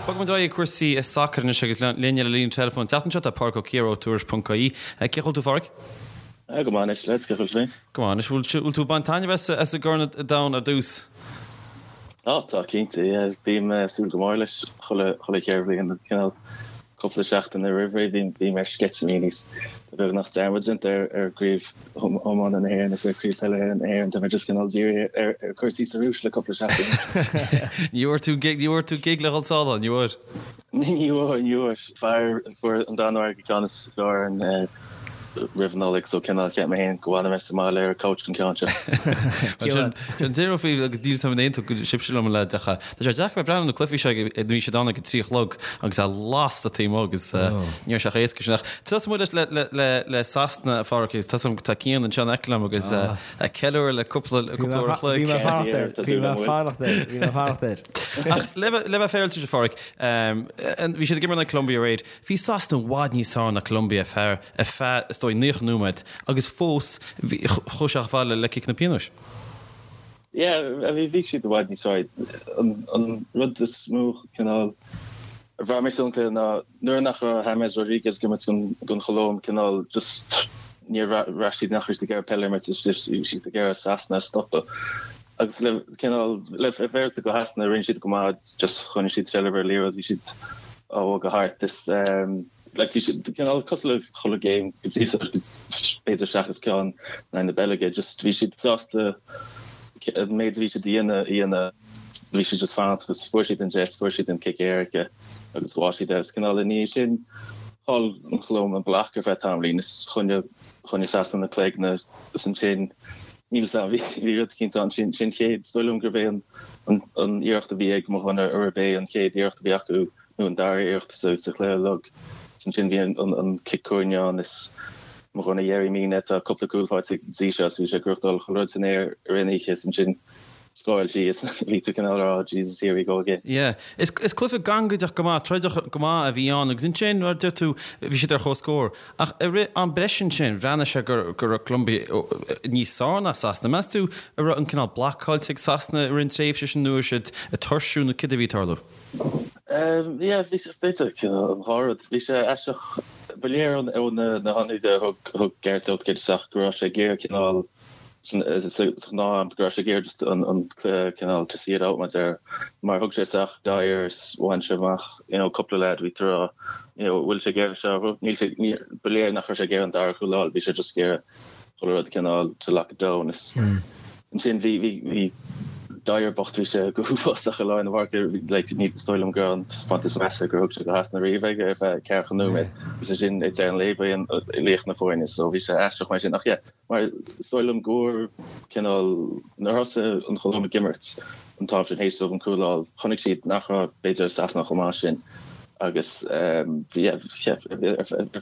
Bogfaidh muid ar aghaidh ag cúrsaí sacair anois agus linn ar an líne teileafóin an tseachtain seo tá Pádraic Ó Ciardha ó Tuairisc.ie. Cén chaoi a bhfuil tú, a Phádraic? Go maith anois, lads, cén chaoi a bhfuil tú féin? Go maith anois. Bhfuil tú ag baint taitneamh as an gCorn Domhanda ar dtús? Á, tá, cinnte, yeah. Bím ag súil go mór leis chuile cheithre bhliain, cineál cúpla seachtain roimh ré bím ar sceitimíní is tá beagnach dearmad déanta ar ar chraobh iomána na hÉireann is ar chraobh peile na hÉireann, tá mé just cineál dírithe ar ar cúrsaí sa Rúis le cúpla seachtain. Ní bhfuair tú gig, ní bhfuair tú gig le dhul sall, ní bhfuair? Ní bhfuair, ní bhfuair. Fear a fuair an Danmhairg an ceann is fearr orainn roimh an Nollaig so cineál cheap mé féin go bhfanfaidh mé sa mbaile ar an couch don ceann seo. Sin an deireadh faoi agus níl 'fhios agam an aontóidh sibhse liom le deacha. Tá sé deacair bheith breathnú na cluichí seo ag bhí siad ann ag a 3 a chlog agus é lasta taobh amuigh agus ní raibh sé chomh éasca sin ach tosóidh muid leis le le le Sasana a Phádraic agus tá 'fhios agam tá Cian anseo in aice liom agus ag ceiliúradh le cúpla cúpla uair a chloig. Bhí mé ag fanacht air, bhí mé ag fanacht air, bhí mé ag fanacht air. Ach le bheith le bheith féaráilte a Phádraic, bhí siad ag imirt in aghaidh Colombia aréir, Bhí Sasana i bhfad níos fearr ná Colombia ar feadh, is dóigh, 90 nóiméad agus fós chuaigh sé chomh fada le ciceanna pionóis. Yeah, bhí bhí siad i bhfad níos fearr. An rud is mó cineál a bhraith mé san cluiche ná nuair nach raibh James Rodriguez ag imirt don Cholóim cineál just níor bhraith siad nach raibh siad ag iarraidh peil a imirt, bhí siad ag iarraidh Sasana a stopadh. Agus le cineál le fair play do Shasana rinne siad go maith just choinnigh siad seilbh ar an liathróid bhí siad á bhogadh thart is like bhí siad cineál cosúil le chuile game go dtí seo b'fhéidir seachas ceann in aghaidh na Beilge just bhí siad sásta an méid a bhí siad a dhéanamh a dhéanamh bhí siad just fanacht agus fuair siad an deis fuair siad an cic éirice agus bháigh siad é agus cineál i ndiaidh sin chaill an Cholóim an bloc ar feadh tamaillín is choinnigh choinnigh Sasana na cloigne agus ansin níl 'fhios a'm bhí bhí rud eicínt ann sin sin chéad is dóigh liom gurbh é an an an iarracht a bhí ag mo dhuine arb é an chéad iarracht a bhí acu nó an dara iarracht sa chluiche uilig. Ansin bhí an cic cúirne ann is mo dhuine Yerry Mina tá cúpla cúl faighte go dtí seo is bhí sé ag gnóthachtáil chuile rud san aer i rith an oíche is ansin scóráil sí is bhí tú cineál ag rá Jesus here we go again. Yeah. Is cluiche gangaideach go maith, troideach go maith a bhí ann agus ansin mar a deir tú bhí siad ar comhscór. Ach i rith am breise ansin, bhreathnaigh sé go raibh Colombia níos fearr ná Sasana. Meas tú an raibh an cineál bloc caillte ag Sasana i rith an tréimhse sin nó raibh siad ag tuirsiú nó céard a bhí ag tarlú? Yeah, bhí sé, b'fhéidir, an dhá rud. Bhí sé aisteach, ba léir ó na hionsaithe a thug Gareth Southgate isteach go raibh sé ag iarraidh cineál, sa ghnáth-am, go raibh sé ag iarraidh just an cluiche cineál to see it out mar a deir, mar thug sé isteach Dier is bhain sé amach, you know, cúpla leaid, bhí tú ag rá, you know, bhfuil sé ag iarraidh seo, níl sé, ba léir nach raibh sé ag iarraidh an dara cúl a fháil, bhí sé just ag iarraidh chuile rud cineál to lock it down is ansin bhí bhí bhí Dier bocht bhí sé go huafásach i lár na páirce like ní is dóigh liom go raibh an taispeántas is measa gur thug sé do Shasana riamh ag ar feadh ceathracha nóiméad agus ansin ag deireadh an lae ba é an laoch na foirne so bhí sé aisteach mar sin ach yeah mar is dóigh liom gur cineál nuair a thosaigh an Cholóim ag imirt an t-am sin théis dóibh an cúl a fháil chonaic siad nach raibh b'fhéidir Sasana chomh maith sin agus bhí ar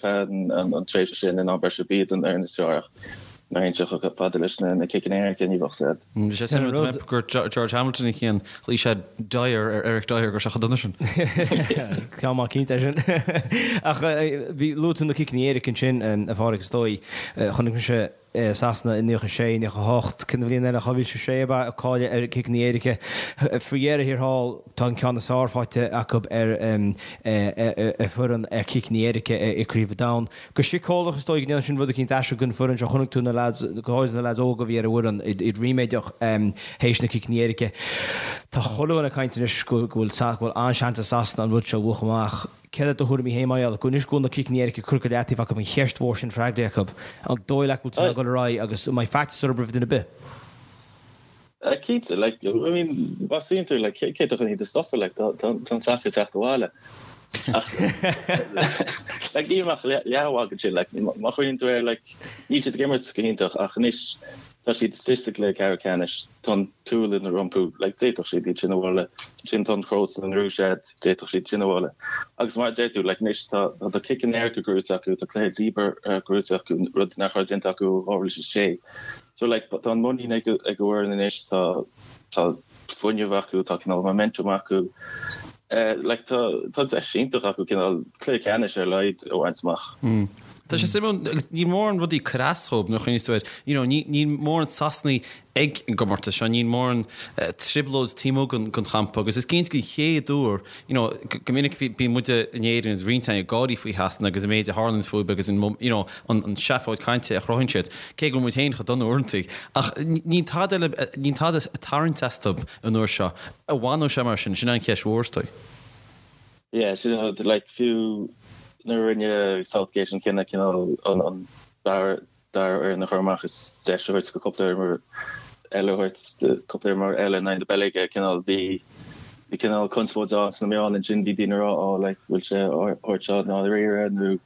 feadh an tréimhse sin in am breise b'iad an fhoireann is fearr ach nuair a théann sé chomh fada leis na ciceanna éirice ní bheadh said. Bhí sé suimiúil gur George Hamilton a chinn, ghlaoigh sé Dyer ar Eric Dier go raibh sé chomh dona sin. Ceann maith cinnte é sin. Ach bhí luaigh tú na ciceanna éirice ansin, a Phádraig, is dóigh. Chonaic mise Sasana i 96, 98, cén bhliain eile, 2006 ab ea, ag cailleadh ar ciceanna éirice. Faoi dheireadh thiar thall, tá an ceann is fearr faighte acu ar foireann ar chiceanna éirice i gCraobh an Domhain. Go síceolach is dóigh go ndéanann sin rud eicínt aisteach don foireann seo. Chonaic tú na leaids, go háirithe na leaids óga a bhí ar an bhfoireann, iad ríméadach théis na ciceanna éirice. Tá chuile dhuine ag caint anois go bhfuil an-seans ag Sasana an rud seo a bhuachan amach. Céard iad do thuairimí féin mar gheall go anois go bhfuil na ciceanna éirice curtha go leataobh acu, an cheist mhór sin freagraithe acu, an dóigh leat go bhfuil siad in ann dul ar aghaidh agus an mbeidh faitíos orthu roimh duine ar bith? Cinnte, like, I mean, má smaoiníonn tú, like, cé atá chun iad a stopadh, like, tá an Sacs ag teacht abhaile. Ach, like, níl ach leathmhagadh ansin, like, má chuimhníonn tú air, like, níl siad ag imirt go hiontach ach anois tá siad istigh sa gcluiche ceathrú ceannais, tá an tSualainn rompu, like, d'fhéadfadh siad iad sin a bhualadh, ansin tá an Chróit an Rúis agat, D'fhéadfadh siad sin a bhualadh. Agus mar a deir tú, like, anois tá tá ciceanna éirice gnóite acu, tá cluiche díbeartha gnóite acu, rud nach raibh déanta acu ó 2006. So, like, tá an muinín ag ag an bhfoireann anois, tá tá fuinneamh acu, tá cineál momentum acu. Like, tá tá deis iontach acu cineál cluiche ceannais ar a laghad a bhaint amach. Tá sé suimiúil, agus níl mórán rudaí ag cur as dhóibh nuair a chuimhníos tú air. You know, ní níl mórán Sasanaigh ag an gcomórtas seo, níl mórán trioblóid taobh amuigh den champa agus is cinnte den chéad uair, you know, go minic bíonn muide in Éirinn agus roinnt againn ag gáirí faoi Shasana agus an méid a tharlaíonn fúthu agus an, you know, an seafóid cainte a chruthaíonn siad, cé go bhfuil muid féin chomh dona uaireanta. Ach níl tada eile, níl tada ag tarraingt astu an uair seo. An bhfanfaidh sé mar sin? Sin an cheist mhór is dóigh. Yeah, sin an rud, like, fiú nuair a rinne Southgate an cinneadh cineál an dara dara fhoireann a chur amach is deis a thabhairt do cúpla imreoir eile a thabhairt cúpla imreoir eile in aghaidh na Beilge, cineál bhí bhí cineál conspóid ann sna meáin ansin, bhí daoine ag rá oh like bhfuil sé á thabhairt seo i ndáiríre nó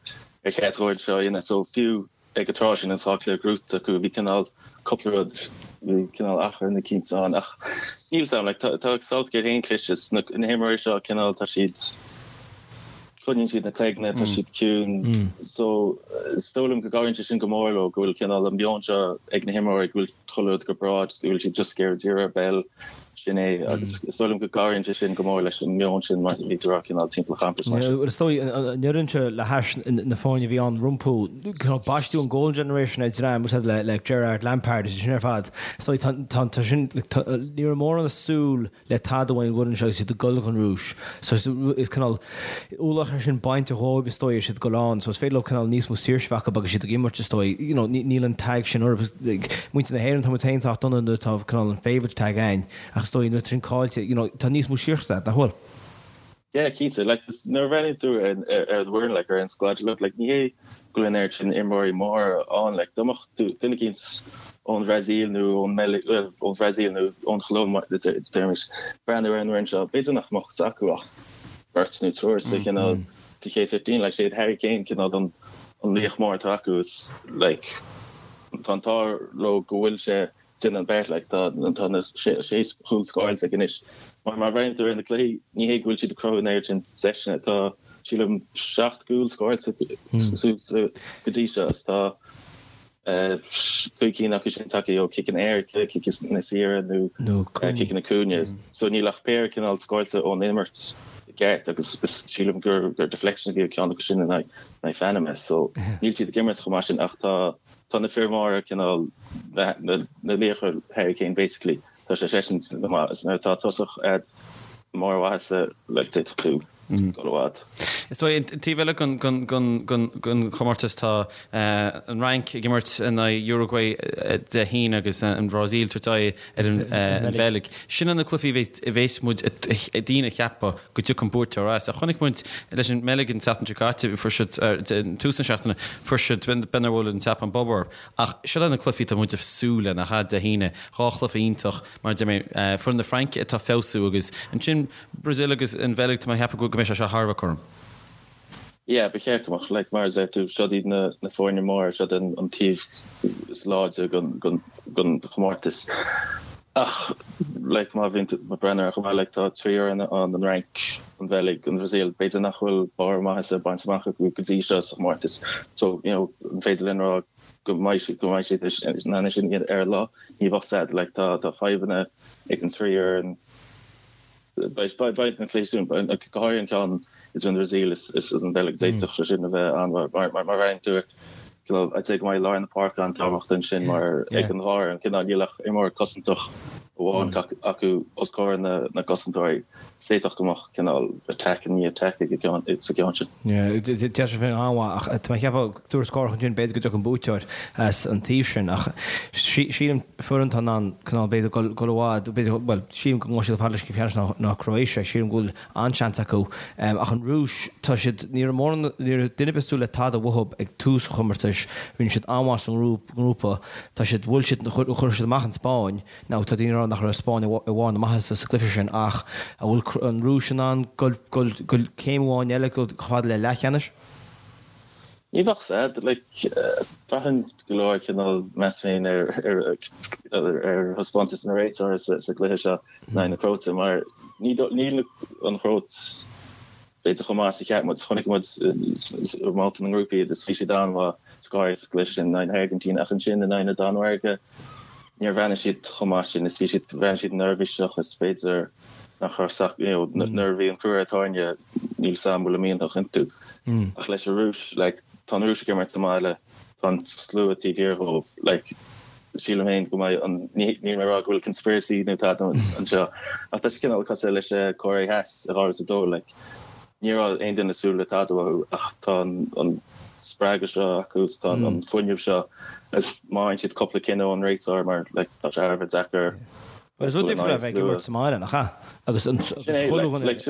ar cheart dhó seo a dhéanamh so fiú ag an tráth sin an dá chluiche gnóite acu bhí cineál cúpla rud bhí cineál achrann eicínt ann ach níl 's a'm like tá tá Southgate féin cliste is na na himreoirí seo cineál tá siad coinníonn siad na cloigne, tá siad ciúin. So, is dóigh liom go gcabhraíonn sé sin go mór leo, go bhfuil cineál an meon seo ag na himreoirí, go bhfuil chuile rud go breá, go bhfuil siad just ag iarraidh díriú ar an bpeil. Sin é, agus is dóigh liom go gcabhraíonn sé sin go mór leis an meon sin mar a bhí tú a rá cineál timpeall an champais mar sin. Is dóigh, an fhoireann seo le hais na foirne a bhí ann rompu, cineál baisteadh an Golden Generation ar dream úsáid le Gerrard, Lampard is sin ar fad. Is dóigh tá tá sin ní raibh mórán ag súil le tada ón bhfoireann seo agus iad ag dul chun Rúis. So is cineál ualach é sin bainte dhóibh is dóigh is iad ag dul ann. So is féidir leo cineál níos mó saoirse a bheith acu agus iad ag imirt is dóigh. You know, níl an tag sin orthu. Like, muintir na hÉireann tá muid féin sách dona nuair atá cineál an favourite tag againn ach is dóigh nuair atá sin caillte, you know, tá níos mó saoirse agat, nach bhfuil? Yeah, cinnte. Like, nuair a bhreathnaíonn tú ar ar an bhfoireann, like, ar an squad, look, like, ní hé go bhfuil an oiread sin imreoirí móra ann, like, dá mbeadh duine eicínt ón Bhrasaíl nó ón mBeilg, bhuel, ón Bhrasaíl nó ón Cholóim, deirimís, breathnú ar an bhfoireann seo, b'fhéidir nach mbeadh fhios acu ach beirt nó triúr sa chineál sa chéad 15, like, sé Harry Kane cineál an an laoch mór atá acu is, like, tá an t-ádh leo go bhfuil sé déanamh an beart, like, tá tá na sé sé chúl scóráilte aige anois. Mar má bhreathnaíonn tú ar na cluichí, ní hé go bhfuil siad ag cruthú an oiread sin deiseanna, tá, sílim, 7 gcúl scóráilte go dtí seo is tá 5 cinn acu sin tagtha ó chiceanna éirice, ciceanna saora nó ciceanna cúinne. So níl ach péire cineál scóráilte ón imirt i gceart agus sílim gur deflection a bhí ag ceann acu sin in aghaidh Phanama. So níl siad ag imirt chomh maith sin ach tá tá na fir mhóra cineál na laochra Harry Kane basically tá sé seisean go maith is nuair atá tosach a'd mórmhaitheasa like d'fhéadfadh tú dul i bhfad. Is dóigh, an taobh eile den chomórtas tá an Fhrainc ag imirt in aghaidh Uruguay Dé hAoine agus an Bhrasaíl ag tabhairt aghaidh ar an Bheilg. Sin na cluichí a bheas muid daoine ag ceapadh go dtiocfaidh an buaiteoir as. Ach chonaic muid leis an mBeilg an tseachtain seo caite, fuair siad, tús na seachtaine, fuair siad, b'fhéidir bhuail an tSeapáin bob orthu. Ach seo na cluichí atá muid ag súil le, nach ea, Dé hAoine, dhá chluiche iontach, mar a deir mé, foireann na Fraince atá ag feabhsú agus ansin Brazil agus an Bheilg, tá mé ag ceapadh go mbeidh sé seo thar a bheith cothrom. Yeah, ba cheart go mbeadh. Like, mar a deir tú, siod iad na na foirne móra, siod an an taobh is láidre den den den chomórtas. Ach, like, má bhíonn tú ag breathnú air chomh maith, like, tá trí fhoireann ann, an Fhrainc, an Bheilg, an Bhrasaíl, b'fhéidir nach bhfuil barr maitheasa bainte amach acu go dtí seo sa chomórtas. So, you know, an féidir linn rá go mbeidh siad go mbeidh siad in ann sin ar an lá? Ní bheadh fhios a'd. Like, tá tá fadhbanna ag an trí fhoireann. Beidh na cluichí sin, go háirithe an ceann idir an Bhrasaíl is an Bheilg, d'fhéadfadh sé sin a bheith an-mhaith mar má bhreathnaíonn tú ar, I'd say go mbeidh lár na páirce an-tábhachtach ansin mar ag an dhá fhoireann, cineál níl ach imreoir cosantach amháin acu os comhair na gcosantóirí. D'fhéadfadh go mbeadh cineál attack i ndiaidh attack ag an gceann sa gceann sin. Deir sé féin an-mhaith ach tá mé ag ceapadh tuarascáil ansin b'fhéidir go dtiocfaidh an buaiteoir as an taobh sin ach sílim foireann atá in ann cineál b'fhéidir dul i bhfad b'fhéidir bhuel sílim go ngabhfaidh siad chomh fada leis an gcluiche ceannais ná Croatia sílim go bhfuil an-seans acu ach an Rúis tá siad ní raibh mórán ní raibh duine ar bith ag súil le tada uathu ag tús an chomórtais rinne siad an-mhaith sa ngrúpa tá siad bhuail siad chuir siad amach an Spáinn Now, tá daoine ag rá nach raibh Spáinn i bharr na maitheasa sa gcluiche sin ach an bhfuil an Rúis in ann dul céim amháin eile, dul chomh fada le leathcheannais? Ní bheadh fhios a'd. Like, braitheann go leor cineál meas féin ar ar thaispeántas na réiteoirí sa gcluiche seo in aghaidh na Cróite mar níl an Chróit b'fhéidir chomh maith is a cheap muid. Chonaic muid i mbabhta na ngrúpaí iad is bhí siad an-mhaith go háirithe sa gcluiche sin in aghaidh na hAirgintíne ach ansin in aghaidh na Danmhairge níor bhreathnaigh siad chomh maith sin is bhí siad, bhreathnaigh siad neirbhíseach is b'fhéidir nach raibh sac, you know, nuair a bhí an crú ar an tairne níl 's a'm an bhfuil a mianach iontu. Ach leis an Rúis, like, tá an Rúis ag imirt sa mbaile, tá an slua taobh thiar dhóibh, like, sílim féin go mbeidh an, níl mé ag rá go bhfuil conspiracy nó tada anseo, ach tá sé cineál cosúil leis an Cóiré Theas i 2002, like, ní raibh aon duine ag súil le tada uathu ach tá an spreagadh seo acu is tá an fuinneamh seo is má fhaigheann siad cúpla cinneadh ón réiteoir mar like tá sé thar a bheith deacair Bhuel is rud difriúil é a bheith ag imirt sa mbaile, nach ea? Agus an chuile dhuine like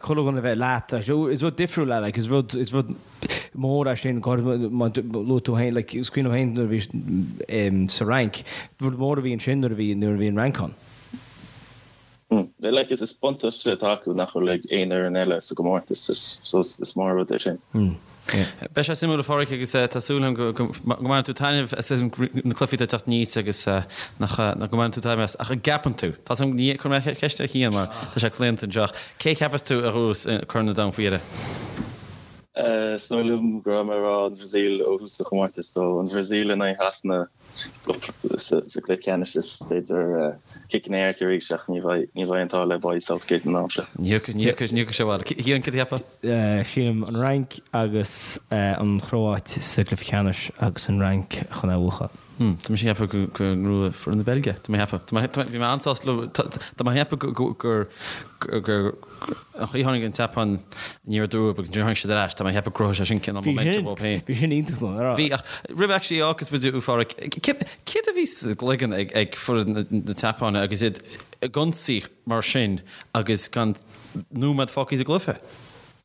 chuile dhuine a bheith leat, is rud difriúil é, like is rud, is rud mór é sin, go háirithe má luaigh tú féin, like is cuimhin liom féin nuair a bhí sa Fhrainc, rud mór a bhí ansin nuair a bhí, nuair a bhí an Fhrainc ann. Like is buntáiste atá acu nach bhfuil ag aon fhoireann eile sa gcomórtas, so is mór rud é sin. Beidh sé suimiúil a Pháraic agus tá súil agam go mbainfidh tú taitneamh as na cluichí atá ag teacht aníos agus nach go mbainfidh tú taitneamh as. Ach an gceapann tú, tá a fhios agam, ní chuir mé ceist ar Chian mar tá sé claonta anseo, ach cé a cheapas tú a ghnóthós Corn an Domhain faoi dheireadh? Is dóigh liom go raibh mé ag rá an Bhrasaíl ó thús an chomórtais, so an Bhrasaíl in aghaidh Shasana. sa gcluiche ceannais is b'fhéidir ciceanna éirice arís ach ní bheidh ní bheidh an t-ádh le Bobby Southgate an am seo. Ní thiocfaidh sé abhaile. Cian, cad a cheapfá? Sílim an Fhrainc agus an Chróit sa gcluiche ceannais agus an Fhrainc chun é a bhuachan. Tá mise ag ceapadh go go ngnóthóidh foireann na Beilge. Tá mé ag ceapadh. Tá mé bhí mé an-sásta leo. Tá mé ag ceapadh go gur gur an chaoi a tháinig an tSeapáin aniar aduaidh agus ansin tháinig siad ar ais. Tá mé ag ceapadh go gcruthóidh sé sin cineál momentum dóibh féin. Bhí sin iontach nó, ar Bhí ach roimh actually fhágfas muid a Pháraic, céard céard a bhí sa gcloigeann ag ag foireann na tSeapáine agus iad ag ionsaí mar sin agus gan nóiméad fágtha sa gcluiche?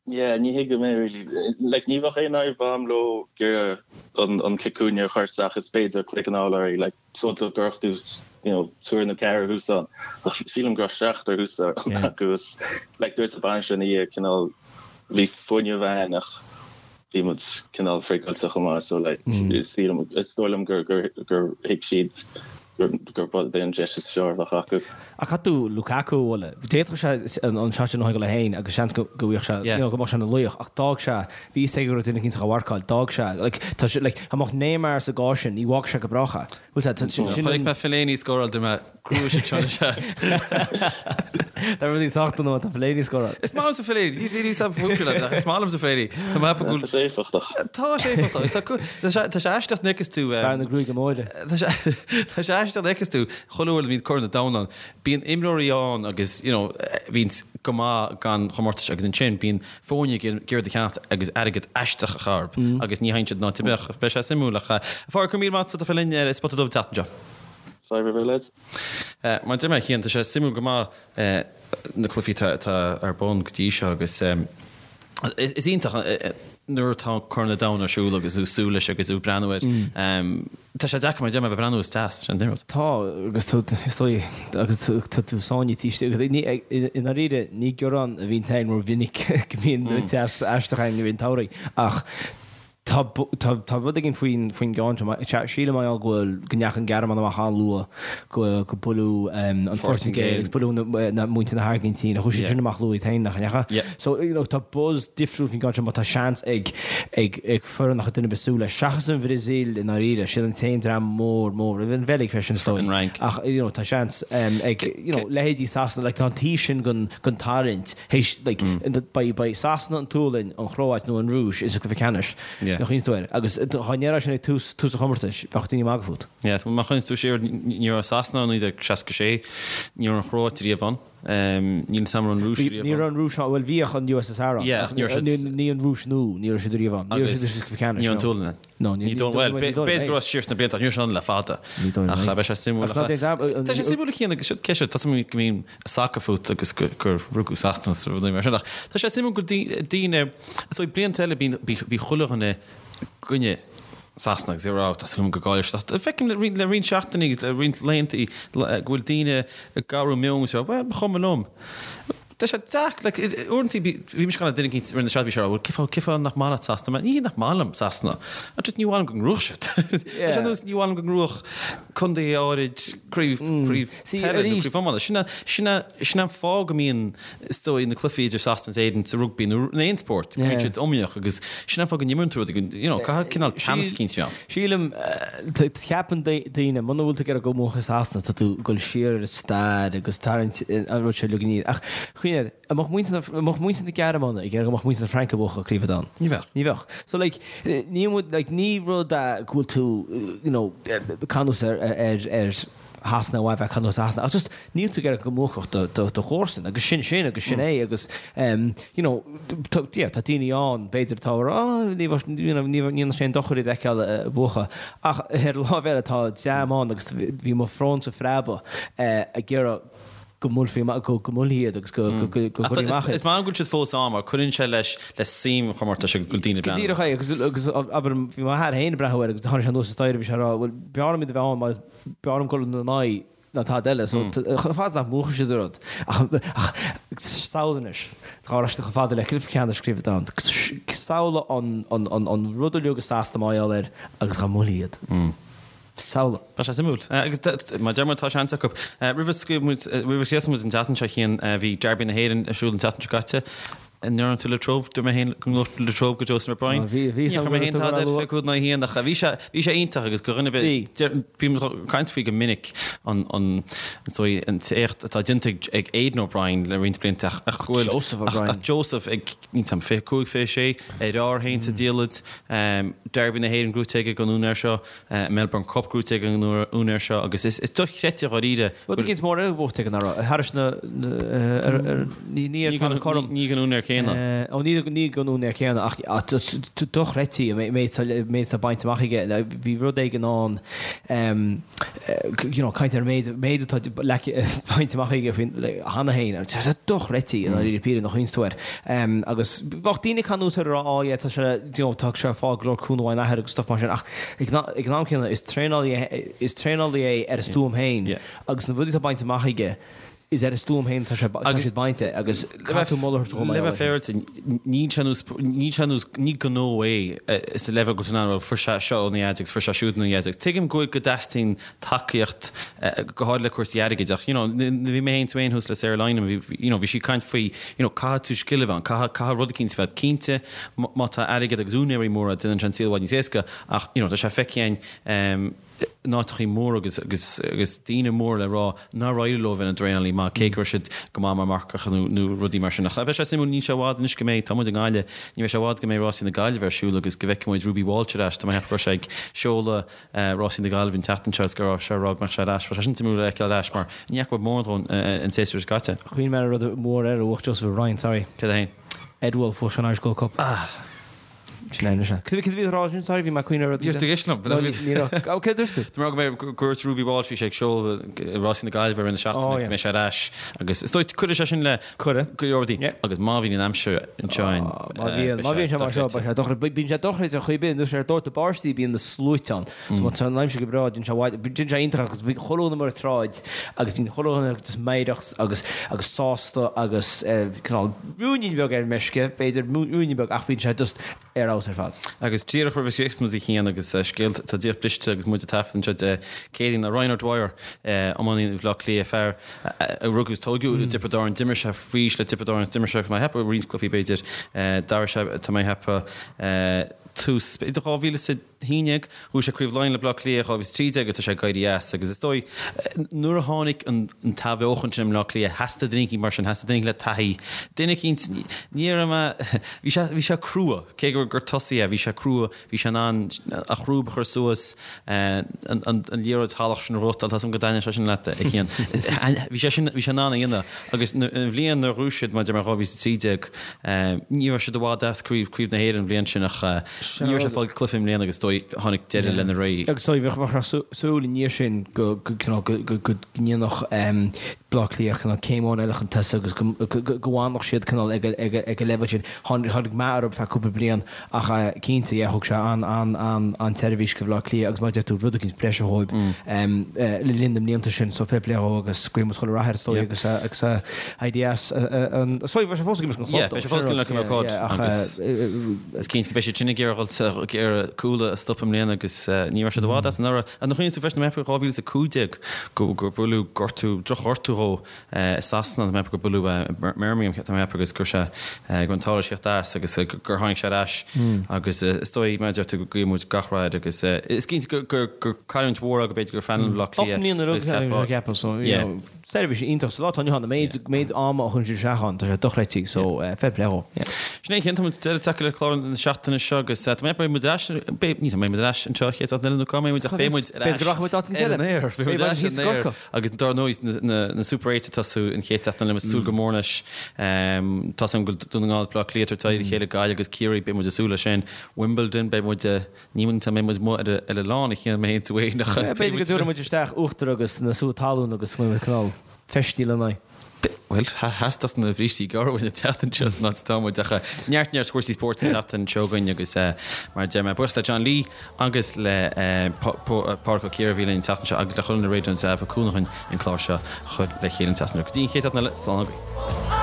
Yeah, ní thuigim é really. Like, ní bheadh aon fhadhb a'm leo ag iarraidh an cic cúinne a chur isteach is b'fhéidir cloigeann a fháil orthu, like, so go gcuirfeadh tú, you know, triúr nó ceathrar thuas ann. Ach sílim go raibh seachtar thuas acu is, like, dúirt an bainisteoir ina dhiaidh, cineál, bhí fuinneamh a'ainn ach bhí muid cineál friogalta chomh maith, so like, sílim, is dóigh liom gur, gur, gur thuig siad gur ba é an deis is fearr a bheadh acu. Ach caithfidh tú Lukaku a mholadh. D'fhéadfadh sé an shot sin a thógáil é féin agus seans go bhfaigheadh sé, you know, go mbeadh sé ina laoch ach d'fhág sé, bhí fhios aige go raibh duine eicínt á mharcáil, d'fhág sé, like, tá sé, like, dá mbeadh Neymar sa gcás sin, ní bhfágfadh sé go brách é. Bhfuil sé, tá, sin, sin Chonaic mé Fellaini ag scóráil, dúirt mé, gnóthóidh siad seo anois é. Tá rudaí sách dona má tá Fellaini ag scóráil. Is maith liomsa Fellaini, ní ní sa bhfuil leat, ach is maith liomsa Fellaini. Tá mé ag ceapadh go Tá sé éifeachtach. Tá sé éifeachtach. Tá tá sé tá sé aisteach nuair a fheiceas tú Fear na gruaige móire. Tá sé tá sé aisteach nuair a fheiceas tú chuile uair a bhíonn Corn an Domhain ann, bíonn imreoirí ann agus you know bhíonn go maith gan chomórtais agus ansin bíonn foirne ag iarraidh iad a cheannacht agus airgead aisteach a chur orthu agus ní thagann siad in áit ar bith. Beidh sé suimiúil ach a Pháraic, go raibh míle maith agat as a bheith linn ar Spota Dubh an tseachtain seo. Fadhb ar bith lads. Mar a deir mé, a Chian, tá sé suimiúil go maith na cluichí atá ar bun go dtí seo agus is iontach nuair atá Corn an Domhain ar siúl agus tú ag súil leis agus tú ag breathnú air. Tá sé deacair mar a deir mé a bheith ag breathnú is deas, sin an rud. Tá agus tú is dóigh agus tá tú sáinnithe istigh agus ní i ndáiríre ní gearán a bhíonn againn rómhinic go mbíonn teas aisteach againn i rith an tsamhraidh ach Tá, tá, tá rud éigin faoin, faoin gceann seo. Sílim mar gheall go bhfuil, go ndeachaigh an Ghearmáin amach an-luath, go, go buaileadh an Phortaingéil agus buaileadh na, na, muintir na hAirgintíne, chuaigh siad sin amach luath iad féin, nach ndeachaigh? Yeah. So, you know, tá buzz difriúil faoin gceann seo má tá seans ag, ag, ag foireann nach raibh duine ar bith ag súil leis, seachas an Bhrasaíl i ndáiríre, siad an t-aon dream mór, mór, an Bheilg freisin is dóigh. An Fhrainc. Ach, you know, tá seans ag, you know, leithéidí Sasana, like, tá an taobh sin den, den tarraingt, Théis, like, beidh, beidh Sasana, an tSualainn, an Chróit nó an Rúis sa gcluiche ceannais. Yeah. Nach iontas duit. Agus dá ndéarfá sin ag tús, tús an chomórtais, bheadh daoine ag magadh fút. Yeah, má chuimhníonn tú siar, ní raibh Sasana ann i 1966, ní raibh an Chróit riamh ann, níl a fhios agam an raibh an Rúis riamh ann. Ní raibh an Rúis ann, bhuel bhíodh an USSR ann. Yeah, ach ní raibh siad. Ní an Rúis nua, ní raibh siad riamh ann. Ní raibh siad sa gcluiche ceannais. Ní raibh an tSualainn ann. No, ní dóigh, bhuel, b'fhéidir go raibh siar sna blianta, ach ní raibh siad ann le fada. Ní dóigh liom. Ach beidh sé suimiúil. Ach ná déan, Tá sé suimiúil a Chian agus siad, cé siad, tá suim go mbíonn sacar fút agus gur rugadh Sasana is rudaí mar sin ach tá sé suimiúil go daoine, is dóigh blianta eile bíonn, bhí chuile dhuine i gcoinne Sasana agus ag rá tá súil agam go gcaillfidh siad ach feicim le roinnt, le roinnt seachtainí agus le roinnt laethanta go bhfuil daoine ag athrú meoin agus ag rá bhuel ba chuma liom. Tá sé deacair, like, uaireanta bhí mise ag caint le duine eicínt roimh na seachtaine, bhí sé ag rá, bhuel, cén fáth, cén fáth nach maith leat Sasana? Ní hé nach maith liom Sasana, ach just ní mhaith liom go ngnóthódh siad. Tá sé ar nós ní mhaith liom go ngnóthódh contae áirid craobh, craobh peile nó craobh iomána. Sin é, sin é, sin é an fáth go mbíonn, is dóigh, na cluichí idir Sasana is Éirinn sa rugbaí nó in aon spórt, go mbíonn siad iomaíoch agus sin é an fáth go n-imríonn tú rudaí, you know, caithfidh cineál teannas eicínt a bheith ann. Sílim, ceapann daoine, muna bhfuil tú ag iarraidh go mbuafadh Sasana, tá tú ag dul siar ar an stair agus tarraingt an rud seo uilig aniar. Ach, cuimhnigh air, an mbeadh muintir na, an mbeadh muintir na Gearmáine ag iarraidh go mbeadh muintir na Fraince ag buachan Craobh an Domhain? Ní bheadh. Ní bheadh. So like, ní muid, like, ní rud é go bhfuil tú, you know, ag canús ar, ar, ar Shasana nó a bheith ag canús ar Shasana, ach just níl tú ag iarraidh go mbuafadh do, do, do chomharsan agus sin sin agus sin é agus em, you know, tá, yeah, tá daoine ann b'fhéidir atá ag rá oh, ní bheadh, you know, ní bheadh, ní dhéanfadh sé aon dochar iad a fheiceáil ag buachan ach ar an lámh eile tá dream ann agus bhí mo shrónsa ag preabadh eh, ag iarraidh go mbuailfí amach, go, go mbuailfí iad agus go, go, go, go gcuirfí amach iad. Is maith liom go bhfuil siad fós ann mar cuireann sé leis le suim an chomórtais agus go bhfuil daoine ag breathnú. Go díreach é agus, agus abair, bhí m'athair féin ag breathnú air agus tháinig sé anuas an staighre bhí sé ag rá, bhuel, b'fhearr liom iad a bheith ann mar b'fhearr liom dul ina n-aghaidh ná tada eile. So chomh fada is nach mbuachfaidh siad an rud. Ach samhlaigh anois, dá raibh siad chomh fada le cluiche ceannais Craobh an Domhain. Samhlaigh an rud uilig i Sasana mar gheall air agus dá mbuailfí iad. Samhlaigh. Tá sé suimiúil. Agus mar a deir muid, tá seans acu. Roimh a scaoil muid, roimh a chríochnaigh muid an tseachtain seo, a Chian, bhí Derby na hÉireann ar siúl an tseachtain seo caite. An ndearna tú Latrobe? Dúirt mé féin go ngabhadh Latrobe go Joseph O'Brien. Bhí, bhí Ní chuir mé féin tada ar 25 in aghaidh 1 ach bhí sé, bhí sé iontach agus go dhuine ar bith, bím ag caint faoi go minic an, an, is dóigh, an t-éacht atá déanta ag, ag Aidan O'Brien le roinnt blianta ach, ach go bhfuil, Joseph O'Brien. ach Joseph ag, níl 'fhios a'm, 25, 26, ar fhearr féin sa diallait, Derby na hÉireann gnóite aige don úinéir seo. Melbourne Cup gnóite ag an úinéir seo agus is dochreidte dháiríre. Rud eicínt mór eile buaite ag an Aire, thairis na, ní ar an Corn. Ní ag an úinéir céanna. Ó ní ag an úinéir céanna ach dochreidte an méid atá bainte amach aige. Bhí rud éigin ann, you know, caint ar an méid atá bainte amach aige faoin cheana féin. Tá sé dochreidte i ndáiríre píre nuair a chuimhníonns tú air. Agus bheadh daoine ag canúint air a rá, oh yeah, tá sé, you know, tá sé ag fáil go leor cúnamh óna athair agus stuff mar sin ach ag an am céanna is traenálaí é, is traenálaí é ar a stuaim féin agus na rudaí atá bainte amach aige is ar a stuaim féin atá sé, tá siad bainte agus caithfidh tú moladh a thabhairt dó mar gheall air sin. Le bheith féaráilte, níl sé nós, níl sé nós, ní gnó é sa leibhéal go bhfuil tú in ann, bhuel fuair sé seo óna dhaid agus fuair sé siúd óna dhaid agus tuigim go bhfuil, go dteastaíonn tacaíocht go háirithe le cúrsaí airgid ach you know bhí mé féin tú féin thuas le Sarah Lynam bhí you know bhí sí ag caint faoi you know caithfidh tú scil a bheith ann caithfidh caithfidh rud eicínt a bheith cinnte má tá airgead agus úinéirí móra déanann sé an saol i bhfad níos éasca ach you know tá sé feicthe againn em in áiteachaí móra agus agus agus daoine móra le rá nár éirigh leo bheith ina dtraenálaí maith cé go raibh siad go maith mar mharcach nó nó rudaí mar sin ach beidh sé suimiúil níl sé i bhfad anois go mbeidh tá muid i nGaillimh ní bheidh sé i bhfad go mbeidh rásaí na Gaillimhe ar siúl agus go bhfeicfidh muid Ruby Walsh ar ais tá mé ag ceapadh go raibh sé ag seoladh Rásaí na Gaillimhe an tseachtain seo is go raibh sé ag rá go mbeadh sé ar ais. Bheadh sé sin suimiúil a fheiceáil ar ais mar ní fhaca muid mórán dhó an séasúr seo caite. Chuimhnigh mé ar rud mór eile a bhuaigh Joseph O'Brien, sorry. Céard é féin? Ed Woulfe, bhuaigh sé an Irish Gold Cup. Ah! Sin é anois é. Cad a bhí tú a rá ansin, sorry, bhí mé ag cuimhneamh ar rud. Níor tuigis liom. No, ní raibh. Ó, céard a dúirt tú? Tá mé ag rá go mbeidh, go dúirt Ruby Walsh, bhí sé ag seoladh Rásaí na Gaillimhe i rith na seachtaine agus go mbeidh sé ar ais agus is dóigh cuirfidh sé sin le Cuireadh. go leor rudaí agus má bhíonn an aimsir anseo in Má bhíonn, má bhíonn sé mar seo, beidh sé dochreidte. Bíonn sé dochreidte ar chaoi ar bith, nuair ar dóite báistí bíonn na sluaite ann. So má tá an aimsir go breá, bíonn sé bhfad, bíonn sé iontach agus bíonn chuile dhuine amuigh ar an tsráid agus bíonn chuile dhuine just meidhreach agus, agus sásta agus cineál ruainnín beag ar meisce, b'fhéidir, ruainnín beag ach bíonn sé just ar fheabhas ar fad. Agus díreach roimh a chríochnós muid a Chian agus scéal atá díreach briste agus muid ag taifead anseo Dé Céadaoin ná Ryan O'Dwyer, iománaí Bhaile Átha Cliath, fear a rugadh is tóigeadh i dTiobraid Árann, d'imir sé faoi aois le Tiobraid Árann, d'imir sé, tá mé ag ceapadh, roinnt cluichí b'fhéidir, d'athraigh sé, tá mé ag ceapadh, tús, b'fhéidir 2011, bhuaigh sé Craobh Laighean le Baile Átha Cliath 2013 agus tá sé ag éirí as agus is dóigh nuair a tháinig an t-athbheochan sin i mBleá Cliath theastaigh duine eicínt mar sin, theastaigh duine eicínt le taithí, duine eicínt, ní raibh mé, bhí sé, bhí sé crua, cé gur, gur tosaí é, bhí sé crua, bhí sé in ann a chrúb a chur suas, an, an, an liathróid shalach sin a ghnóthachtáil, tá 'fhios a'm go dtaitníonn sé sin leat, a Chian. Bhí sé sin, bhí sé in ann a dhéanamh agus an bhliain nuair a ghnóthaigh siad, mar a deir mé 2013, ní raibh siad i bhfad as craobh, craobh na hÉireann an bhliain sin ach ní raibh sé ag fáil cluiche i mbliana agus is dóigh tháinig deireadh lena ré. Agus is dóigh bheadh súil i ndiaidh sin go go ndéanfadh Bleá Cliath cineál céim amháin eile chun tosaigh agus go bhfanfadh siad cineál ag an leibhéal sin. Tháinig meath orthu feadh cúpla bliain ach cinnte, yeah, thug sé an-tseirbhís go Bhleá Cliath agus mar a deir tú, rud eicínt breise dhóibh le linn na mblianta sin. So fair play dhó agus guím chuile rath air is dóigh agus agus ideas an is dóigh beidh sé fós ag imirt don chlub Yeah, beidh sé fós ag imirt don chlub agus is cinnte go mbeidh siad sin ag iarraidh dhul ag iarraidh Cuala a stop i mbliana agus ní raibh siad i bhfad as anuraidh. An gcuimhníonn tú freisin mé ag ceapadh 2015 go gur buaileadh gortú, drochghortú dhó i Sasana, tá mé ag ceapadh gur buaileadh i mBirmingham, tá mé ag ceapadh agus go raibh sé go raibh an t-ádh leis theacht as agus gur tháinig sé ar ais agus is dóigh mar a deir tú go guíonn muid gach rath air agus is cinnte gur gur gur cailliúint mhór é go b'fhéidir gur phainéal Bhaile Átha Cliath 8 mbliana agus ceapfá ceapadh so you know seirbhís iontach sa lá atá inniu ann, an méid méid ama a chuireann siad isteach ann tá sé dochreidte so fair play dhó. Yeah. Sin é a Chian, tá muid deireadh tagtha le clár na seachtaine seo agus tá mé ag ceapadh beidh muid ar ais beidh ní beidh muid ar ais anseo chéad seachtain eile nó cá mbeidh muid ach beidh muid ar ais B'fhéidir go rachaidh muid áit eicínt eile. ar an aer beidh muid ar ais ar an aer. Agus dar ndóigh, na Super Eight ag tosú an chéad seachtain eile, muid ag súil go mór leis. Tá 's agam go bhfuil Dún na nGall, Baile Átha Cliath ag tabhairt aghaidh ar a chéile, Gaillimh agus Ciarraí, beidh muid ag súil leis sin. Wimbledon, beidh muid, ní an mbeidh muid amuigh ar an oileán a Chian, mé féin tú féin ach beidh B'fhéidir go dtabharfaidh muid isteach uachtar agus na sútha talún agus go mbeidh muid cineál feistithe lena n-aghaidh. Bhuel, theastódh na brístí gearra uainn an tseachtain seo san áit atá muid ach neart neart cúrsaí spóirt an tseachtain seo againn agus mar a deir mé, buíochas le John Lee agus le Pádraic Ó Ciardha a bhí linn an tseachtain seo agus le chuile dhuine ar Raidió na Life a thug cúnamh dhúinn an clár seo a chur le chéile an tseachtain seo. Go dtí an chéad seachtain eile, slán agaibh.